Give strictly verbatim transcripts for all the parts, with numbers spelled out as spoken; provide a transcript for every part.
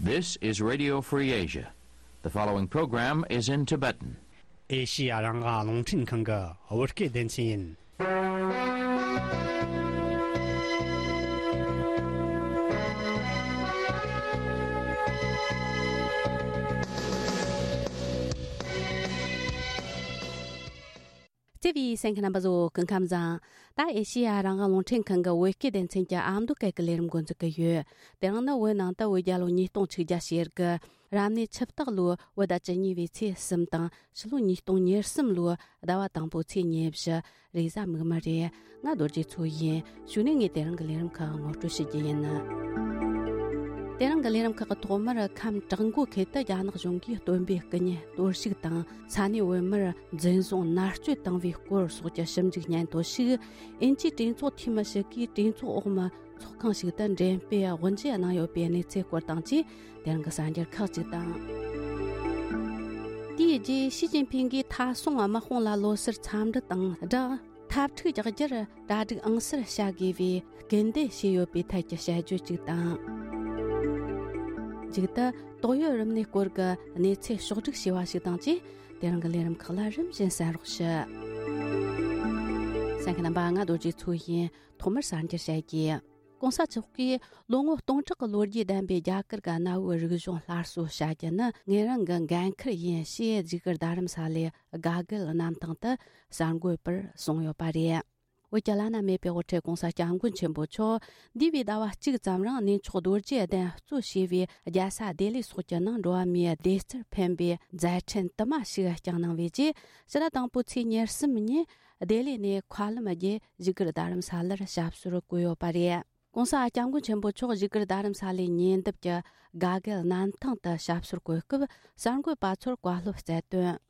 This is Radio Free Asia. The following program is in Tibetan. ཨེ་ཤི་ཡ་རང་དབང་རླུང་འཕྲིན་ཁང་གི་བོད་སྐད་སྡེ་ཚན་ཡིན། བརྩེ་བའི་གསན་མཁན་རྣམ་པ་ཚོ་སྐུ་ཁམས་བཟང་། ད་ཨེ་ཤི་ཡ་རང་དབང་རླུང་འཕྲིན་ཁང་གི་བོད་སྐད་སྡེ་ཚན་གྱི་ཨ་མདོ་སྐད་ཀྱི་ལས་རིམ་འགོ་འཛུགས་ཀྱི་ཡོད། དེ་རིང་ནི་བོད་ནང་དུ་བོད་རྒྱལ་ལོ་ཉིས་སྟོང་དྲུག་བརྒྱ་ཞེ་དགུ། རབ་གནས་ཆུ་སྟག་ལོའི་བོད་ཟླ་བཅུ་གཉིས་པའི་ཚེས་གསུམ་དང་ཕྱི་ལོ་ཉིས་སྟོང་ཉེར་གསུམ་ལོའི་ཟླ་བ་དང་པོའི་ཚེས་ཉེར་བཞི། རེས་གཟའ་མིག་དམར་རེད། ང་རྡོ་རྗེ་མཚོ་ཡིན། གཞུག་ནས་ངས་དེ་རིང་གི་ལས་རིམ་ཁག་ངོ་སྤྲོད་ཞུ་རྒྱུ་ཡིན། དེ་རིང་གི་ལས་རིམ་ཁག་གི་ཐོག་མར་ཁམས་བྲག་འགོ་ཁུལ་དུ་རྒྱ་ནག་གཞུང་གིས་སྟོན་པའི་སྐུ་བརྙན་གཏོར་བཤིག་དང་ས་གནས་བོད་མིར་འཛིན་བཟུང་མནར་གཅོད་བཏང་བའི་སྐོར་སོགས་ཀྱི་ཞིབ་འཇུག་སྙན་ཐོ་ཞིག་ཨིན་ཇིའི་གྲོས་ཚོགས་འཐུས་མི་ཞིག་གིས་གྲོས་ཚོགས་འོག་མའི་ཚོགས་ཁང་ཞིག་ཏུ་འགྲེམས་སྤེལ་དབུ་འབྱེད་གནང་ཡོད་པའི་གནས་ཚུལ་སྐོར་དང་བཅས་དེ་རིང་གི་གསར་འགྱུར་ཁག་ཅིག་དང་། དེའི་རྗེས་ཞི་ཅིན་ཕིང་གིས་མཐའ་སྲུང་དམག་དཔུང་ལ་ལོ་སར་འཚམས་འདྲི་དང་སྦྲགས། འཐབ་འཁྲུག་རྒྱག་རྒྱུར་གྲ་སྒྲིག་ཨང་གསར་བྱ་དགོས་པའི་སྐུལ་འདེད་བྱས་ཡོད་པའི་ཐད་ཀྱི་དཔྱད་བརྗོད་ཅིག་དང་། མཇུག་ཏུ་ཏོག་དབྱིབས་རིམས་ནད་སྐོར་གྱི་གནས་ཚུལ་ཕྱོགས་བསྒྲིགས་བྱས་པ་ཞིག་དང་བཅས། དེ་རིང་གི་ལས་རིམ་ཁག་ལ་རིམ་བཞིན་གསན་རོགས་ཞུ། གསན་མཁན་རྣམ་པ། ང་རྡོ་རྗེ་མཚོ་ཡིན། ཐོག་མར་གསར་འགྱུར་བཤད་རྒྱུ། གོང་ས་མཆོག་གིས་ལོ་ངོ་སྟོང་ཕྲག་གི་ལོ་རྒྱུས་ལྡན་པའི་རྒྱ་གར་གྱི་གནའ་བོའི་རིག་གཞུང་སླར་གསོ་བྱ་རྒྱུ་ནི་ངེད་རང་གི་འགན་འཁུར་ཡིན་ཞེས་བཞུགས་སྒར་རྡ་རམ་ས་ལའི་དགའ་སྐལ་གནམ་ཐང་དུ་གསར་འགོད་པར་གསུངས་ཡོད་པ་རེད། བོད་ཀྱི་བླ་ན་མེད་པའི་དབུ་ཁྲིད་གོང་ས་སྐྱབས་མགོན་ཆེན་པོ་མཆོག་འདས་པའི་ཟླ་བ་གཅིག་ཙམ་རིང་གནས་མཆོག་རྡོ་རྗེ་གདན་གཙོ་བྱས་པའི་རྒྱལ་ས་ལྡི་ལི་སོགས་ཀྱི་ནང་འགྲོ་བ་མིའི་བདེ་རྩར་ཕན་པའི་མཛད་འཕྲིན་དུ་མ་ཞིག་བསྐྱངས་གནང་བའི་རྗེས། ཕྱི་ཟླ་དང་པོའི་ཚེས་ཉེར་གསུམ་ཉིན་ལྡི་ལི་ནས་མཁའ་ལམ་བརྒྱུད་བཞུགས་སྒར་རྡ་རམ་ས་ལར་ཞབས་སོར་བཀོད་ཡོད་པ་རེད། གོང་ས་སྐྱབས་མགོན་ཆེན་པོ་མཆོག་བཞུགས་སྒར་རྡ་རམ་ས་ལའི་ཉེ་འདབས་ཀྱི་དགའ་སྐལ་གནམ་ཐང་དུ་ཞབས་སོར་བཀོད་སྐབས་གསར་འགོད་པ་ཚོར་བཀའ་སློབ་སྩལ་དོན།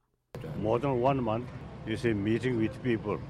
More than one month, you see, meeting with people.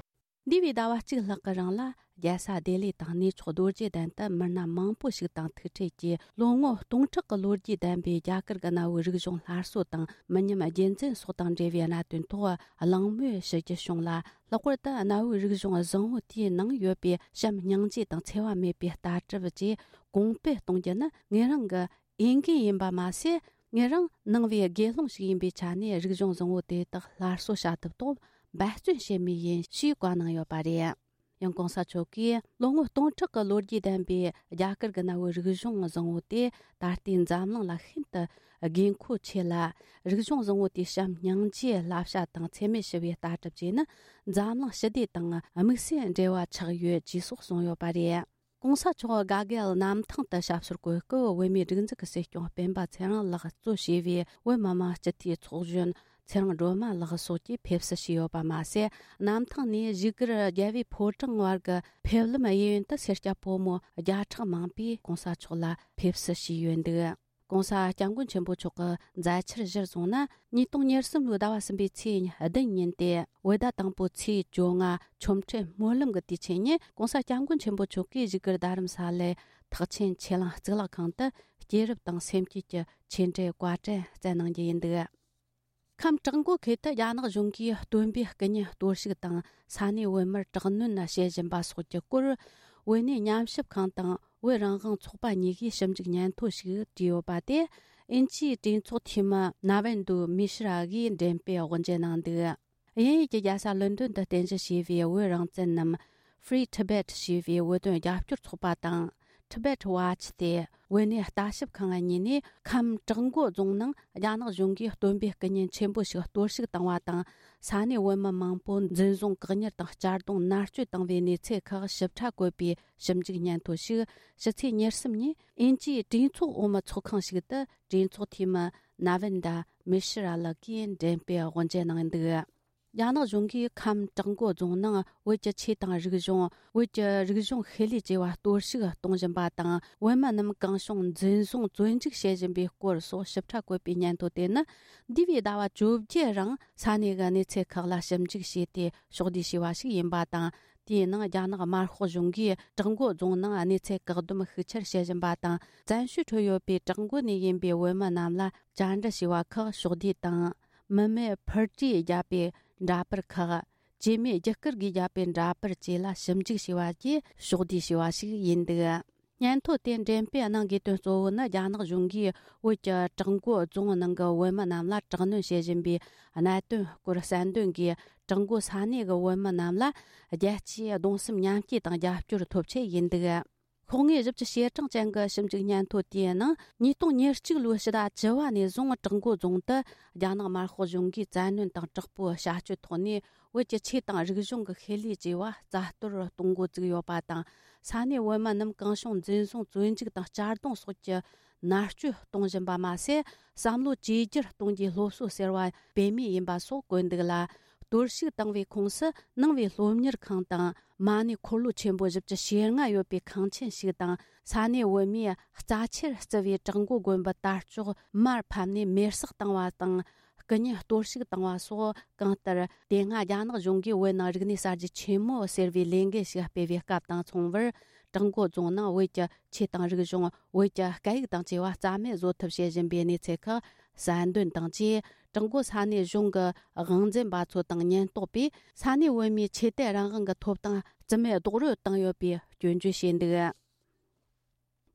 འདས་པའི་ཟླ་བ་གཅིག་ལྷག་གི་རིང་ལ་རྒྱལ་ས་ལྡི་ལི་དང་གནས་མཆོག་རྡོ་རྗེ་གདན་དུ་མི་སྣ་མང་པོ་ཞིག་དང་ཐུག་འཕྲད་ཀྱིས། ལོ་ངོ་སྟོང་ཕྲག་གི་ལོ་རྒྱུས་ལྡན་པའི་རྒྱ་གར་གྱི་གནའ་བོའི་རིག་གཞུང་སླར་གསོ་དང་མི་ཉམས་རྒྱུན་འཛིན་སོགས་དང་འབྲེལ་བའི་གནད་དོན་ཐོག་གླེང་མོལ་ཞུ་རྒྱུ་བྱུང་ལ། ལྷག་པར་དུ་གནའ་བོའི་རིག་གཞུང་བཟང་བོ་དེའི་ནང་ཡོད་པའི་བྱམས་སྙིང་རྗེ་དང་འཚེ་བ་མེད་པའི་ལྟ་གྲུབ་བཅས་གོང་སྤེལ་གཏོང་རྒྱུ་ནི་ངེད་རང་གི་འོས་འགན་ཡིན་པ་མ་ཟད། ངེད་རང་ནང་པའི་དགེ་སློང་ཞིག་ཡིན་པའི་ཆ་ནས་རིག་གཞུང་བཟང་བོ་དེ་དག་སླར་གསོ་བྱ་ཐབས་ཐོག་འབད་བརྩོན་བྱེད་མུས་ཡིན་ཞེས་བཀའ་གནང་ཡོད་པ་རེད། ཡང་གོང་ས་མཆོག་གིས་ལོ་ངོ་སྟོང་ཕྲག་གི་ལོ་རྒྱུས་ལྡན་པའི་རྒྱ་གར་གྱི་གནའ་བོའི་རིག་གཞུང་བཟང་བོ་དེ་ད་ལྟའི་འཛམ་གླིང་ལ་ཤིན་ཏུ་དགོས་མཁོ་ཆེ་ལ། རིག་གཞུང་བཟང་བོ་དེའི་བྱམས་སྙིང་རྗེའི་བསླབ་བྱ་དང་འཚེ་མེད་ཞི་བའི་ལྟ་གྲུབ་བཅས་ནི་འཛམ་གླིང་ཞི་བདེ་དང་དམིགས་བསལ་འབྲེལ་བ་ཆགས་ཡོད་ཅེས་སོགས་གསུངས་ཡོད་པ་རེད། གོང་ས་མཆོག་དགའ་སྐལ་གནམ་ཐང་དུ་ཞབས་སོར་བཀོད་སྐབས། བོད་མིའི་སྒྲིག་འཛུགས་ཀྱི་སྲིད་སྐྱོང་སྤེན་པ་ཚེ་རིང་ལགས་གཙོ་བྱས་པའི་བོད་མི་མང་སྤྱི་འཐུས་ཚོགས་གཞོན་ཚེ་རིང་སྒྲོལ་མ་ལགས་སོགས་ཀྱིས་ཕེབས་བསུ་ཞུས་ཡོད་པ་མ་ཟད། གནམ་ཐང་ནས་བཞུགས་སྒར་རྒྱལ་བའི་ཕོ་བྲང་བར་གྱི་ཕེབས་ལམ་གཡས་གཡོན་དུ་སེར་སྐྱ་ཕོ་མོ་བརྒྱ་ཕྲག་མང་པོས་གོང་ས་མཆོག་ལ་ཕེབས་བསུ་ཞུས་ཡོད་འདུག་གོང་ས་སྐྱབས་མགོན་ཆེན་པོ་མཆོག་གི་མཛད་འཆར་གཞིར་བཟུང་ན། ཉིས་སྟོང་ཉེར་གསུམ་ལོའི་ཟླ་བ་གསུམ་པའི་ཚེས་བདུན་ཉིན་ཏེ། བོད་ཟླ་དང་པོའི་ཚེས་བཅོ་ལྔ་ཆོ་འཕྲུལ་སྨོན་ལམ་གྱི་དུས་ཆེན་ཉིན། གོང་ས་སྐྱབས་མགོན་ཆེན་པོ་མཆོག་གིས་བཞུགས་སྒར་རྡ་རམ་ས་ལའི་ཐེག་ཆེན་ཆོས་གླིང་གཙུག་ལག་ཁང་དུ་སྐྱེས་རབས་དང་སེམས་བསྐྱེད་ཀྱི་ཆོས་འབྲེལ་བཀའ་དྲིན་སྩལ་གནང་རྒྱུ་ཡིན་འདུག་ཁམས་བྲག་འགོ་ཁུལ་དུ་རྒྱ་ནག་གཞུང་གིས་སྟོན་པའི་སྐུ་བརྙན་གཏོར་བཤིག་དང་ས་གནས་བོད་མིར་དྲག་གནོན་བྱེད་བཞིན་པ་སོགས་ཀྱི་སྐོར། བོད་གནས་ཉམས་ཞིབ་ཁང་དང་བོད་རང་དབང་ཚོགས་པ་གཉིས་ཀྱིས་ཞིབ་འཇུག་སྙན་ཐོ་ཞིག་བྲིས་ཡོད་པ་དེ། ཨིན་ཇིའི་གྲོས་ཚོགས་འཐུས་མི་ན་ཝན་དུ་མི་ཤི་ར་གིས་འགྲེམས་སྤེལ་དབུ་འབྱེད་གནང་འདུག་དབྱིན་ཡུལ་གྱི་རྒྱལ་ས་ལོན་ཌོན་དུ་རྟེན་གཞི་བྱས་པའི་བོད་རང་བཙན་ནམ་Free Tibet ཞེས་པའི་བོད་དོན་རྒྱབ་སྐྱོར་ཚོགས་པ་དང་། Tibet Watch སྟེ། བོད་གནས་ལྟ་ཞིབ་ཁང་གཉིས་ནས་ཁམས་བྲག་འགོ་རྫོང་ནང་རྒྱ་ནག་གཞུང་གིས་སྟོན་པའི་སྐུ་བརྙན་ཆེན་པོ་ཞིག་གཏོར་བཤིག་བཏང་བ་དང་། ས་གནས་བོད་མི་མང་པོ་འཛིན་བཟུང་བཀག་ཉར་དང་གཅར་རྡུང་མནར་གཅོད་བཏང་བའི་གནས་ཚུལ་ཁག་ཞིབ་ཕྲ་བཀོད་པའི་ཞིབ་འཇུག་སྙན་ཐོ་ཞིག་ཕྱི་ཚེས་ཉེར་གསུམ་ཉིན་ཨིན་ཇིའི་གྲོས་ཚོགས་འོག་མའི་ཚོགས་ཁང་ཞིག་ཏུ་གྲོས་ཚོགས་འཐུས་མི་ན་ཝན་ཌ་མི་ཤི་ར་ལགས་ཀྱིས་འགྲེམས་སྤེལ་དབུ་འབྱེད་གནང་འདུག་རྒྱ་ནག་གཞུང་གིས་ཁམས་བྲག་འགོ་རྫོང་ནང་བོད་ཀྱི་ཆོས་དང་རིག་གཞུང་། བོད་ཀྱི་རིག་གཞུང་ཤེས་ལས་བཅས་པ་གཏོར་བཤིག་གཏོང་བཞིན་པ་དང་། བོད་མི་རྣམས་གང་བྱུང་འཛིན་བཟུང་བཙོན་འཇུག་བྱེད་བཞིན་པའི་སྐོར་སོགས་ཞིབ་ཕྲ་བཀོད་པའི་སྙན་ཐོ་དེ་ནི། འདས་པའི་ཟླ་བ་བཅོ་བརྒྱད་རིང་ས་གནས་ཀྱི་གནས་ཚུལ་ཁག་ལ་ཞིབ་འཇུག་བྱས་ཏེ་ཕྱོགས་བསྡུས་བྱས་པ་ཞིག་ཡིན་པ་དང་། དེའི་ནང་རྒྱ་ནག་དམར་ཤོག་གཞུང་གིས་བྲག་འགོ་རྫོང་ནང་གནས་ཚུལ་བཀག་སྡོམ་ཤུགས་ཆེར་བྱེད་བཞིན་པ་དང་། བཙན་བྱོལ་ཁྲོད་ཡོད་པའི་བྲག་འགོ་ནས་ཡིན་པའི་བོད་མི་རྣམས་ལ་བཅར་འདྲི་བྱས་པ་ཁག་ཕྱོགས་བསྡུས་དང་། མི་མེད་ཕུར་གྲུས་བརྒྱབ་པའི་འདྲ་པར་ཁག་བཅོས་མའི་རྒྱུ་སྐར་གྱིས་བརྒྱབ་པའི་འདྲ་པར་བཅས་ལ་ཞིབ་འཇུག་བྱས་པ་བཅས་ཕྱོགས་བསྡུས་བྱས་པ་ཞིག་ཡིན་འདུག་སྙན་ཐོ་དེ་འགྲེམས་སྤེལ་གནང་དགོས་དོན་གཙོ་བོ་ནི། རྒྱ་ནག་གཞུང་གིས་བོད་ཀྱི་བྲག་འགོ་རྫོང་ནང་གི་བོད་མི་རྣམས་ལ་དྲག་གནོན་བྱེད་བཞིན་པའི་གནད་དོན་སྐོར་གསལ་འདོན་གྱིས། བྲག་འགོ་ས་གནས་ཀྱི་བོད་མི་རྣམས་ལ་རྒྱལ་སྤྱིའི་གདུང་སེམས་མཉམ་སྐྱེད་དང་རྒྱབ་སྐྱོར་ཐོབ་ཆེད་ཡིན་འདུག། ཤོག་ངོས་བཞི་བཅུ་ཞེ་གྲངས་ཅན་གྱི་ཞིབ་འཇུག་སྙན་ཐོ་དེའི་ནང་། ཉིས་སྟོང་ཉེར་གཅིག་ལོའི་ཕྱི་ཟླ་བཅུ་བ་ནས་བཟུང་། བྲག་འགོ་རྫོང་དུ་རྒྱ་ནག་དམར་ཤོག་གཞུང་གིས་བཙན་གནོན་དང་དྲག་པོའི་བྱ་སྤྱོད་ཐོག་ནས། བོད་ཀྱི་ཆོས་དང་རིག་གཞུང་གི་ཤེས་ལས་བཅས་པ་རྩ་གཏོར་གཏོང་འགོ་བཙུགས་ཡོད་པ་དང་། ས་གནས་བོད་མི་རྣམས་གང་བྱུང་འཛིན་བཟུང་། བཙོན་འཇུག་དང་གཅར་རྡུང་སོགས་ཀྱི་མནར་གཅོད་གཏོང་བཞིན་པ་མ་ཟད། བསམ་བློ་བཅོས་བསྒྱུར་གཏོང་རྒྱུའི་སློབ་གསོ་ཟེར་བ་སྤེལ་མུས་ཡིན་པ་སོགས་བཀོད་འདུག་ལ། གཏོར་བཤིག་བཏང་བའི་ཁོངས་སུ། ནང་པའི་སློབ་གཉེར་ཁང་དང་། མ་ཎི་འཁོར་ལོ་ཆེན་པོ་བཞི་བཅུ་ཞེ་ལྔ་ཡོད་པའི་ཁང་ཆེན་ཞིག་དང་། ས་གནས་བོད་མིས་རྩ་ཆེར་བརྩི་བའི་བྲག་འགོ་དགོན་པའི་དར་ལྕོག་མར་ཕབ་ནས་མེར་སྲེག་བཏང་བ་དང་། སྐུ་བརྙན་གཏོར་བཤིག་བཏང་བ་སོགས། གང་ལྟར། དེ་སྔ་རྒྱ་ནག་གཞུང་གིས་བོད་ནང་རིག་གནས་གསར་བརྗེ་ཆེན་མོ་ཟེར་བའི་ལས་འགུལ་ཞིག་སྤེལ་བའི་སྐབས་དང་མཚུངས་པར། བྲག་འགོ་རྫོང་ནང་བོད་ཀྱི་ཆོས་དང་རིག་གཞུང་། བོད་ཀྱི་སྐད་ཡིག་དང་བཅས་པ་རྩ་མེད་བཟོ་ཐབས་བྱེད་བཞིན་པའི་གནས་ཚུལ་ཁག་གསལ་འདོན་དང་བཅས། བྲག་འགོ་ས་གནས་གཞུང་གི་དབང་འཛིན་པ་ཚོ་དང་ཉེན་རྟོག་པས། ས་གནས་བོད་མིའི་ཆོས་དད་རང་དབང་གི་ཐོབ་ཐང་རྩིས་མེད་རྡོག་རོལ་བཏང་ཡོད་པའི་སྐྱོན་བརྗོད་བྱས་འདུག།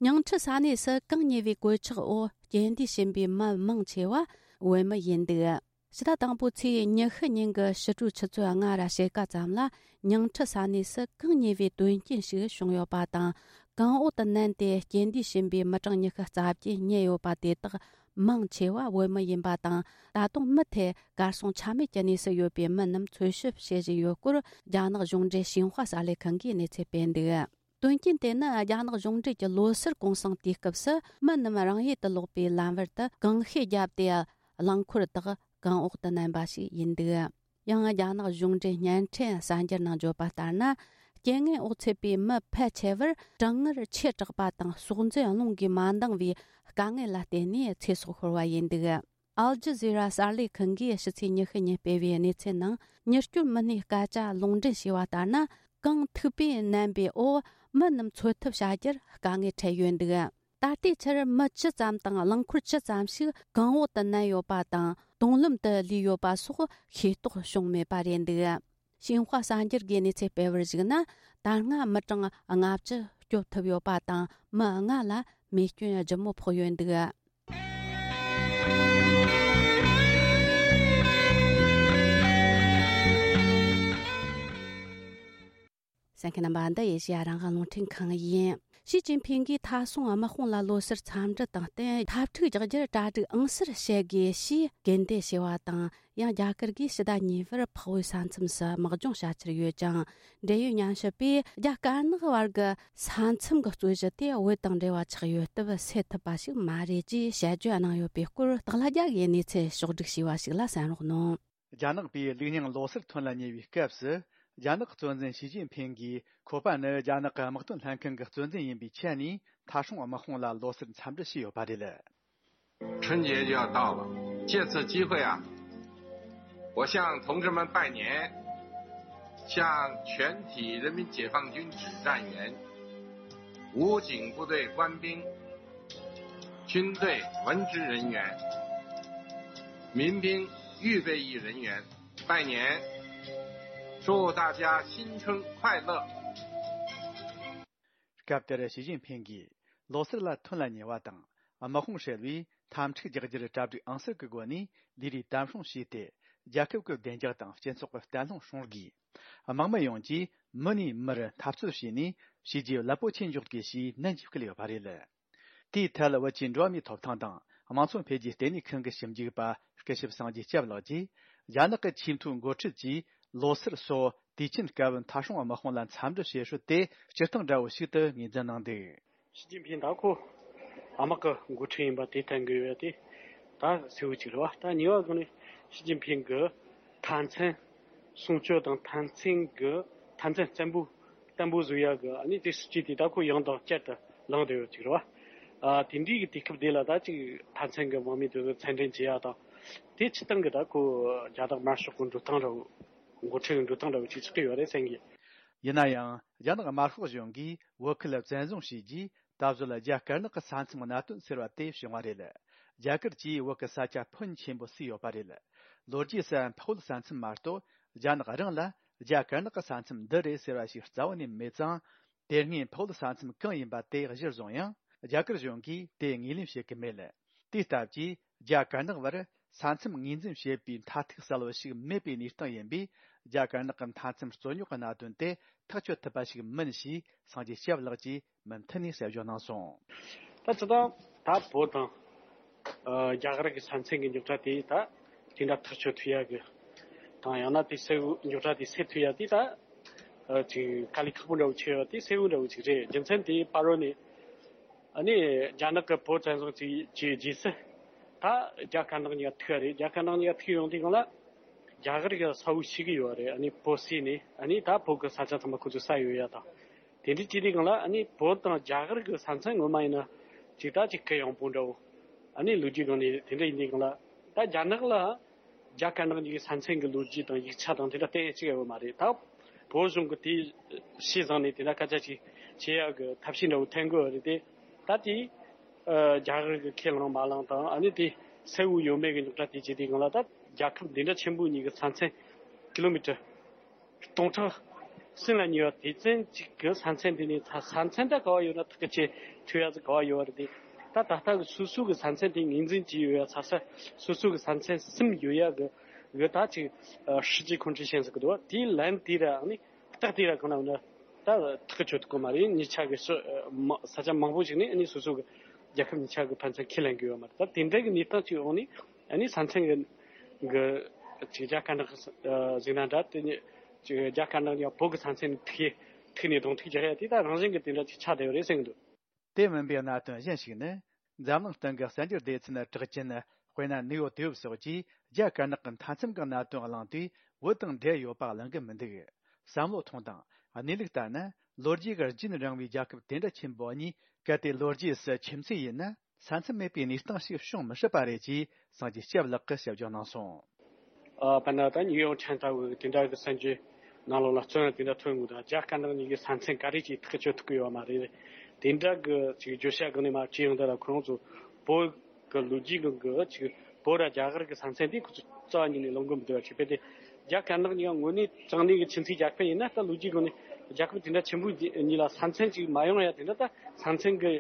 ཉིང་ཁྲི་ས་གནས་སུ་གང་ཉེ་བའི་གོད་ཆག་འོག་རྐྱེན་འདས་ཕྱིན་པའི་མི་མང་ཆེ་བ་བོད་མི་ཡིན་འདུག། ཕྱི་ཟླ་དང་པོའི་ཚེས་ཉི་ཤུ་ཉིན་གྱི་ཕྱི་དྲོའི་ཆུ་ཚོད་ལྔ་ར་ཕྱེད་ཀ་ཙམ་ལ། ཉིང་ཁྲི་ས་གནས་སུ་གང་ཉེ་བའི་དོན་རྐྱེན་ཞིག་བྱུང་ཡོད་པ་དང་། གངས་འོག་ཏུ་མནན་ཏེ་རྐྱེན་འདས་ཕྱིན་པའི་མི་གྲངས་ཉི་ཤུ་རྩ་བརྒྱད་རྙེད་ཡོད་པ་དེ་དག་མང་ཆེ་བ་བོད་མི་ཡིན་པ་དང་། ད་དུང་མུ་མཐུད་གར་སོང་ཆ་མེད་ཀྱི་གནས་སུ་ཡོད་པའི་མི་རྣམས་འཚོལ་ཞིབ་བྱེད་བཞིན་ཡོད་སྐོར། རྒྱ་ནག་གཞུང་འབྲེལ་ཤིན་ཧྭ་གསར་ལས་ཁང་གིས་གནས་ཚུལ་སྤེལ་འདུག། དོན་རྐྱེན་དེ་ནི་རྒྱ་ནག་གཞུང་འབྲེལ་གྱི་ལོ་སར་གུང་སེང་དུས་སྐབས་སུ། མི་རྣམས་རང་ཡུལ་དུ་ལོག་པའི་ལམ་བར་དུ་གང་ཤེད་བརྒྱབ་སྟེ། རླངས་འཁོར་དག་གངས་འོག་ཏུ་མནན་པ་ཞིག་ཡིན་འདུག། ཡང་རྒྱ་ནག་གཞུང་འབྲེལ་བརྙན་འཕྲིན་གསར་འགྱུར་ནང་བརྗོད་པ་ལྟར་ན། རྐྱེན་ངན་འོག་ཚུད་པའི་མི་ཕལ་ཆེ་བར་གྲང་ངར་ཆེ་དྲགས་པ་དང་། སྲོག་འཛིན་རླུང་གིས་མ་འདང་བའི་དཀའ་ངལ་ལ་བརྟེན་ནས་ཚེ་སྲོག་ཤོར་བ་ཡིན་འདུག། ཨལ་ཇི་ཟི་ར་གསར་ལས་ཁང་གིས་ཕྱི་ཚེས་ཉི་ཤུ་ཉིན་སྤེལ་བའི་གནས་ཚུལ་ནང་། མྱུར་སྐྱོབ་མི་སྣས་སྐད་ཆ་ལུང་འདྲེན་བྱས་པ་ལྟར་ན། གངས་མཐུག་པས་མནན་པའི་འོག་མི་རྣམས་འཚོ་ཐབས་བྱ་རྒྱུར་དཀའ་ངལ་འཕྲད་ཡོད་འདུག། ད་ལྟའི་ཆར་མི་བཅུ་ཙམ་དང་རླངས་འཁོར་བཅུ་ཙམ་ཞིག་གངས་འོག་ཏུ་མནན་ཡོད་པ་དང་། དུང་ལམ་དུ་ལུས་ཡོད་པ་སོགས་ཤེས་རྟོགས་བྱུང་མེད་པ་རེད་འདུག། ཤིན་ཧྭ་གསར་འགྱུར་གྱིས་གནས་ཚུལ་སྤེལ་བར་གཞིགས་ན། ད་སྔ་མི་གྲངས་ལྔ་བཅུ་སྐྱོབ་ཐུབ་ཡོད་པ་དང་། མི་ལྔ་ལ་རྨས་སྐྱོན་ལྗིད་མོ་ཕོག་ཡོད་འདུག། གསན་མཁན་རྣམ་པ། འདི་ཨེ་ཤེ་ཡ་རང་དབང་རླུང་འཕྲིན་ཁང་ཡིན། ཞི་ཅིན་ཕིང་གིས་མཐའ་སྲུང་དམག་དཔུང་ལ་ལོ་སར་འཚམས་འདྲི་དང་བསྟུན། འཐབ་འཁྲུག་རྒྱག་རྒྱུར་གྲ་སྒྲིག་ཨང་གསར་བྱེད་དགོས་ཞེས་སྐུལ་འདེད་བྱས་པ་དང་། ཡང་རྒྱ་གར་གྱིས་ཕྱི་ཟླ་གཉིས་པར་འཕགས་བོད་ས་མཚམས་སུ་དམག་སྦྱོང་བྱ་འཆར་ཡོད་ཅིང་། འབྲེལ་ཡོད་ཉམས་ཞིབ་པས། རྒྱ་དཀར་ནག་བར་གྱི་ས་མཚམས་ཀྱི་རྩོད་གཞི་དེ་བོད་དང་འབྲེལ་བ་ཆགས་ཡོད་སྟབས་སེལ་ཐུབ་པ་ཞིག་མ་རེད་ཅེས་དཔྱད་བརྗོད་གནང་ཡོད་པའི་སྐོར། སྟག་ལྷ་རྒྱལ་གྱིས་གནས་ཚུལ་ཕྱོགས་བསྒྲིགས་བྱས་པ་ཞིག་ལ་གསན་རོགས་གནང་། རྒྱ་ནག་པས་ལུགས་རྙིང་ལོ་སར་ཐོན་ལ་ཉེ་བའི་སྐབས་སུ། རྒྱ་ནག་གཙོ་འཛིན་ཞི་ཅིན་ཕིང་གིས། ཁོ་པ་ནི་རྒྱ་ནག་གི་དམག་དོན་ལྷན་ཁང་གི་གཙོ་འཛིན་ཡིན་པའི་ཆ་ནས། མཐའ་སྲུང་དམག་དཔུང་ལ་ལོ་སར་འཚམས་འདྲི་བྱས་ཡོད་པ་རེད། 春节就要到了，借此机会啊，我向同志们拜年，向全体人民解放军指战员、武警部队官兵、军队文职人员、民兵预备役人员拜年，祝大家新春快乐！ སྐབས་དེར་ཞི་ཅིན་ཕིང་གིས། ལོ་སར་ལ་ཐོན་ལ་ཉེ་བ་དང་། དམག་དཔུང་ཧྲིལ་བོས་འཐབ་འཁྲུག་རྒྱག་རྒྱུར་གྲ་སྒྲིག་ཨང་གསར་གྱི་སྒོ་ནས་ལས་རིགས་དམ་སྲུང་བྱས་ཏེ། རྒྱལ་ཁབ་ཀྱི་བདེ་འཇགས་དང་སྤྱི་ཚོགས་ཀྱི་བརྟན་ལྷིང་སྲུང་དགོས། དམག་མི་ཡོངས་ཀྱིས་མི་ནས་མིར་འཐབ་རྩོད་བྱས་ནས། བྱས་རྗེས་རླབས་པོ་ཆེ་འཇོག་དགོས་ཞེས་ནན་གྱིས་བསྐུལ་ཡོད་པ་རེད། དེའི་ཐད། བོད་ཀྱི་འགྲོ་བ་མིའི་ཐོབ་ཐང་དང་། དམངས་འཚོ་འཕེལ་རྒྱས་ལྟེ་གནས་ཁང་གི་ཞིབ་འཇུག་པ་སྐུ་ཞབས་སངས་རྒྱས་སྐྱབས་ལགས་ཀྱིས། རྒྱ་ནག་གི་ཆེས་མཐོའི་འགོ་ཁྲིད་ཀྱིས། ལོ་སར་སོགས་དུས་ཆེན་སྐབས། མཐའ་སྲུང་དམག་དཔུང་ལ་འཚམས་འདྲི་བྱེད་སྲོལ་དེ། སྤྱིར་བཏང་འདྲ་བོ་ཞིག་ཏུ་ངོས་འཛིན་གནང་འདུག། ཞི་ཅིན་ཕིང་ད་ཁོ་དམག་གི་འགོ་ཁྲིད་ཡིན་པ་དེ་བསྟན་གྱི་ཡོད་དེ། ད་གསལ་བོ་གཅིག་རེད་བ། ད་གཉིས་པ་སྒང་ནས་ཞི་ཅིན་ཕིང་གི་མཐའ་མཚམས་སྲུང་སྐྱོབ་དང་། མཐའ་མཚམས་ཀྱི་མཐའ་མཚམས་བརྟན་པོ་བརྟན་པོ་བཟོ་ཡག་གི། ཨ་ནི་དེ་སྲིད་ཇུས་དེ་ད་ཁོ་ཡང་དང་བསྐྱར་དུ་གླེང་བསྡད་ཡོད་ཅིག་རེད་བ། ཨ། དེ་འདྲའི་གི་དུས་སྐབས་དེ་ལ་ད་ཅིག་མཐའ་མཚམས་ཀྱི་དམག་མི་དེ་ཚོ་མཚམས་འདྲེན་བྱེད་ཡག་དང་། དེ་སྤྱིར་བཏང་གི་ད་ཁོ་རྒྱ་ནག་དམར་ཤོག་གི་འགྲོ་སྟངས་འདྲ་བོ། འགོ་ཁྲིད་ཀྱི་འགྲོ་སྟངས་འདྲ་བོ་ཅིག་ཆགས་ཀྱི་ཡོད་རེད་བསམ་གི། ཡིན་ན་ཡང་། རྒྱ་ནག་དམར་ཤོག་གཞུང་གིས་བོད་ཁུལ་བཙན་བཟུང་བྱས་རྗེས། ད་གཟོད་རྒྱ་དཀར་ནག་གི་ས་མཚམས་གནད་དོན་སེལ་བ་དེ་བྱུང་བ་རེད། རྒྱ་གར་གྱིས་བོད་ཀྱི་ས་ཆ་ཕོན་ཆེན་པོ་བསུས་ཡོད་པ་རེད། ལོ་རྒྱུས་སུ་འཕགས་བོད་ས་མཚམས་མ་གཏོགས། རྒྱ་ནག་རང་ལ་རྒྱ་དཀར་ནག་གི་ས་མཚམས་འདི་རེད་ཟེར་བ་ཞིག་རྩ་བ་ནས་མེད་ཙང་། དེ་སྔའི་ཕོ་བོད་ས་མཚམས་གང་ཡིན་པ་དེ་གཞིར་བཟུང་ཡང་རྒྱ་གར་གཞུང་གིས་དེ་ངོས་ལེན་བྱེད་ཀྱི་མེད། དེའི་སྟབས་ཀྱིས་རྒྱ་དཀར་ནག་བར་ས་མཚམས་ངོས་འཛིན་བྱེད་པའི་མཐའ་ཐུག་གསལ་བོ་ཞིག་མེད་པའི་གནས་སྟངས་ཡིན་པས། རྒྱ་དཀར་ནག་གི་མཐའ་མཚམས་རྩོད་རྙོག་གི་གནད་དོན་དེ་ཐག་གཅོད་ཐུབ་པ་ཞིག་མིན་ཞེས་སངས་རྒྱས་སྐྱབས་ལགས་ཀྱིས་མུ་མཐུད་ནས་གསལ་བརྗོད་གནང་སོང་། ད་སྤྱིར་བཏང་ད་བོད་དང་ཨ་རྒྱ་གར་གྱི་ས་མཚམས་ཀྱི་རྙོག་དྲ་དེ་ད་དེ་འདྲ་ཐག་གཅོད་ཐུབ་ཡ་གི་དང་ཡང་ན་དེ་སེལ་རྙོག་དྲ་དེ་སེལ་ཐུབ་ཡ་དེ་ད་ཨ་ཅིག་དཀའ་ལས་ཁག་པོ་འདྲ་བོ་ཆེ་བ་དེ་སེལ་བོ་འདྲ་བོ་ཅིག་རེད། རྒྱུ་མཚན་དེ་ཕ་རོལ་ནས་ཨ་ནི་རྒྱ་ནག་གི་བོད་བཙན་བཟུང་བྱས་བྱས་རྗེས་སུ་ད་རྒྱ་དཀར་ནག་གཉིས་ཀ་ཐུག་ཡ་རེད། རྒྱ་དཀར་ནག་གཉིས་ཀ་ཐུག་ཡོང་དུས་སྒང་ལ་རྒྱ་གར་གྱི་ས་བོན་ཤེས་ཀྱི་ཡོད་རེད། ཨ་ནི་བོད་སའི་ནས་ཨ་ནི་ད་བོད་ཀྱི་ས་ཆ་ཚང་མ་ཁོ་ཚོས་ས་ཡོད་ཡ་དང་། དེ་འདྲའི་བྱས་དུས་སྒང་ལ་ཨ་ནི་བོད་དང་རྒྱ་གར་གྱི་ས་མཚམས་ངོ་མ་ཡིན་ན་ཅིག་ད་ཅིག་གུ་ཡངས་པོ་འདྲ་བོ། ཨ་ནི་ལོ་རྒྱུས་སྒང་ནས་དེ་འདྲ་ཡིན་དུས་སྒང་ལ་ད་རྒྱ་ནག་ལ་རྒྱ་དཀར་ནག་གཉིས་ཀྱི་ས་མཚམས་ཀྱི་ལོ་རྒྱུས་དང་ཡིག་ཆ་དང་དེ་འདྲ་གཏན་ཡ་གཅིག་ཡོད་མ་རེད། ད་བོད་གཞུང་གིས་དེ་ཤེས་བཟུང་ནས་དེ་འདྲ་སྐད་ཆ་ཅིག་བྱེད་ཡ་གི་ཐབས་ཤེས་འདྲ་བོ་འཐེན་དགོས་རེད་དེ། ད་དེ་ཨ་རྒྱ་གར་གྱིས་ཁས་བླངས་མ་བླངས་དང་ཨ་ནི་དེ་སེལ་བོ་ཡོད་མེད་ཀྱི་རྙོག་དྲ་དེ་བྱས་དུས་སྒང་ལ་ད་རྒྱལ་ཁབ་འདི་འདྲ་ཆེན་པོ་གཉིས་ཀྱི་ས་མཚམས་ཀི་ལོ་མི་ཊར་སྟོང་ཕྲག་གསུམ་ལ་ཉེ་བ་དེ་ཙམ་ཅིག་གི་ས་མཚམས་དེ་ནས་ས་མཚམས་ད་ག་བ་ཡོད་ན་ཐག་གཅོད་ཐུབ་ཡ་ཟིག་ག་བ་ཡོད་རེད་དེ། ད་ད་ལྟ་གི་སོ་སོ་གི་ས་མཚམས་དེ་ངོས་འཛིན་བྱས་ཡོད་ཡ་ས་ས་སོ་སོ་གི་ས་མཚམས་གསུམ་ཡོད་ཡ་གི་གི་ད་ཅིག་ཨ་སྲིད་ཇུས་ཁོང་ཁྲོ་ཞན་ཟིག་གི་འདུག་དེའི་ལན་དེ་ར་ཨ་ནི་རྟགས་དེ་ར་གང་ན་འོ་ན་ད་ཐག་གཅོད་ཐུབ་གི་མ་རེད། གཉིས་ཆ་གི་ས་མ་ས་ཆ་མང་པོ་ཞིག་ནས་ཨ་ནི་སོ་སོ་གི་རྒྱལ་ཁབ་གཉིས་ཆ་གི་ཕན་ཚུན་ཁས་ལེན་གི་ཡོད་མ་རེད། ད་དེ་འདྲ་གི་གནས་སྟངས་ཅིག་འོག་ནས་ཨ་ནི་ས་མཚམས་གི་གི་ཅིག་རྒྱ་དཀར་ནག་གི་ཨ་གཟིགས་ན་འདྲ། དེ་ནས་ཅིག་རྒྱ་དཀར་ནག་ཡང་བོད་གི་ས་མཚམས་ནས་ཐུག་ཐུག་ནས་གདོང་ཐུག་རྒྱག་ཡ་དེ་ད་རང་བཞིན་གི་དེ་འདྲ་ཅིག་ཆགས་བསྡད་ཡོད་རེད་ཟེར་གི་འདུག་དེ་མིན་པའི་གནད་དོན་གཞན་ཞིག་ནི། འཛམ་གླིང་སྟེང་གི་གསར་འགྱུར་སྡེ་ཚན་གྲགས་ཅན་དཔེར་ན་ནིའུ་ཡོག་ཊའིམ་སོགས་ཀྱིས་རྒྱ་དཀར་ནག་གི་མཐའ་མཚམས་ཀྱི་གནད་དོན་གླེང་དུས་བོད་དང་འབྲེལ་ཡོད་པ་གླེང་གི་མི་འདུག་བསམ་བློ་ཐོངས་དང་། གནས་ལུགས་ལྟར་ན་ལོ་རྒྱུས་ཀྱི་རྒྱུན་རིང་བའི་རྒྱལ་ཁབ་དེ་འདྲ་ཆེན་པོ་གཉིས་གལ་ཏེ་ལོ་རྒྱུས་སུ་ཁྱིམ་མཚེས་ཡིན་ན། ས་མཚམས་མེད་པའི་གནས་སྟངས་ཤིག་བྱུང་མི་སྲིད་པ་རེད་ཅེས་སངས་རྒྱས་སྐྱབས་ལགས་ཀྱིས་ཞིབ་འཇུག་གནང་སོང་། ཨ་དཔེར་ན་ད་ནིའུ་ཡོག་ཊའིམ་ལྟ་བུ་དེ་འདྲ་གི་གསར་འགྱུར་ནང་ལོགས་ལ་བཙོན་དེ་འདྲ་ཐོན་འདུག་ད་རྒྱ་དཀར་ནག་གཉིས་ཀྱི་ས་མཚམས་ག་རེ་ཅིག་ཐག་གཅོད་ཐུབ་ཀྱི་ཡོད་མ་རེད། དེ་འདྲ་གི་ཅིག་བརྗོད་བྱ་གང་ནས་མ་བྱས་ཡོང་དུས་ལ་ཁོ་རང་ཚོ་བོད་གི་ལོ་རྒྱུས་གི་གི་ཅིག་བོད་ར་རྒྱ་གར་གི་ས་མཚམས་དེ་ཁོ་ཚོ་རྩ་བ་ཉིད་ནས་ལོངས་གི་མི་འདུག་བ། ཅིག་དཔེ་དེ་རྒྱ་དཀར་ནག་གཉིས་ཀ་དངོས་གནས་དྲང་གནས་གི་ཁྱིམ་མཚེས་རྒྱལ་ཁབ་ཡིན་ན་ད་ལོ་རྒྱུས་གང་ནས་རྒྱལ་ཁབ་དེ་འདྲ་ཆེན་པོ་གཉིས་ལ་ས་མཚམས་ཅིག་མ་ཡོང་ཡ་དེ་འདྲ་ད་ས་མཚམས་གི་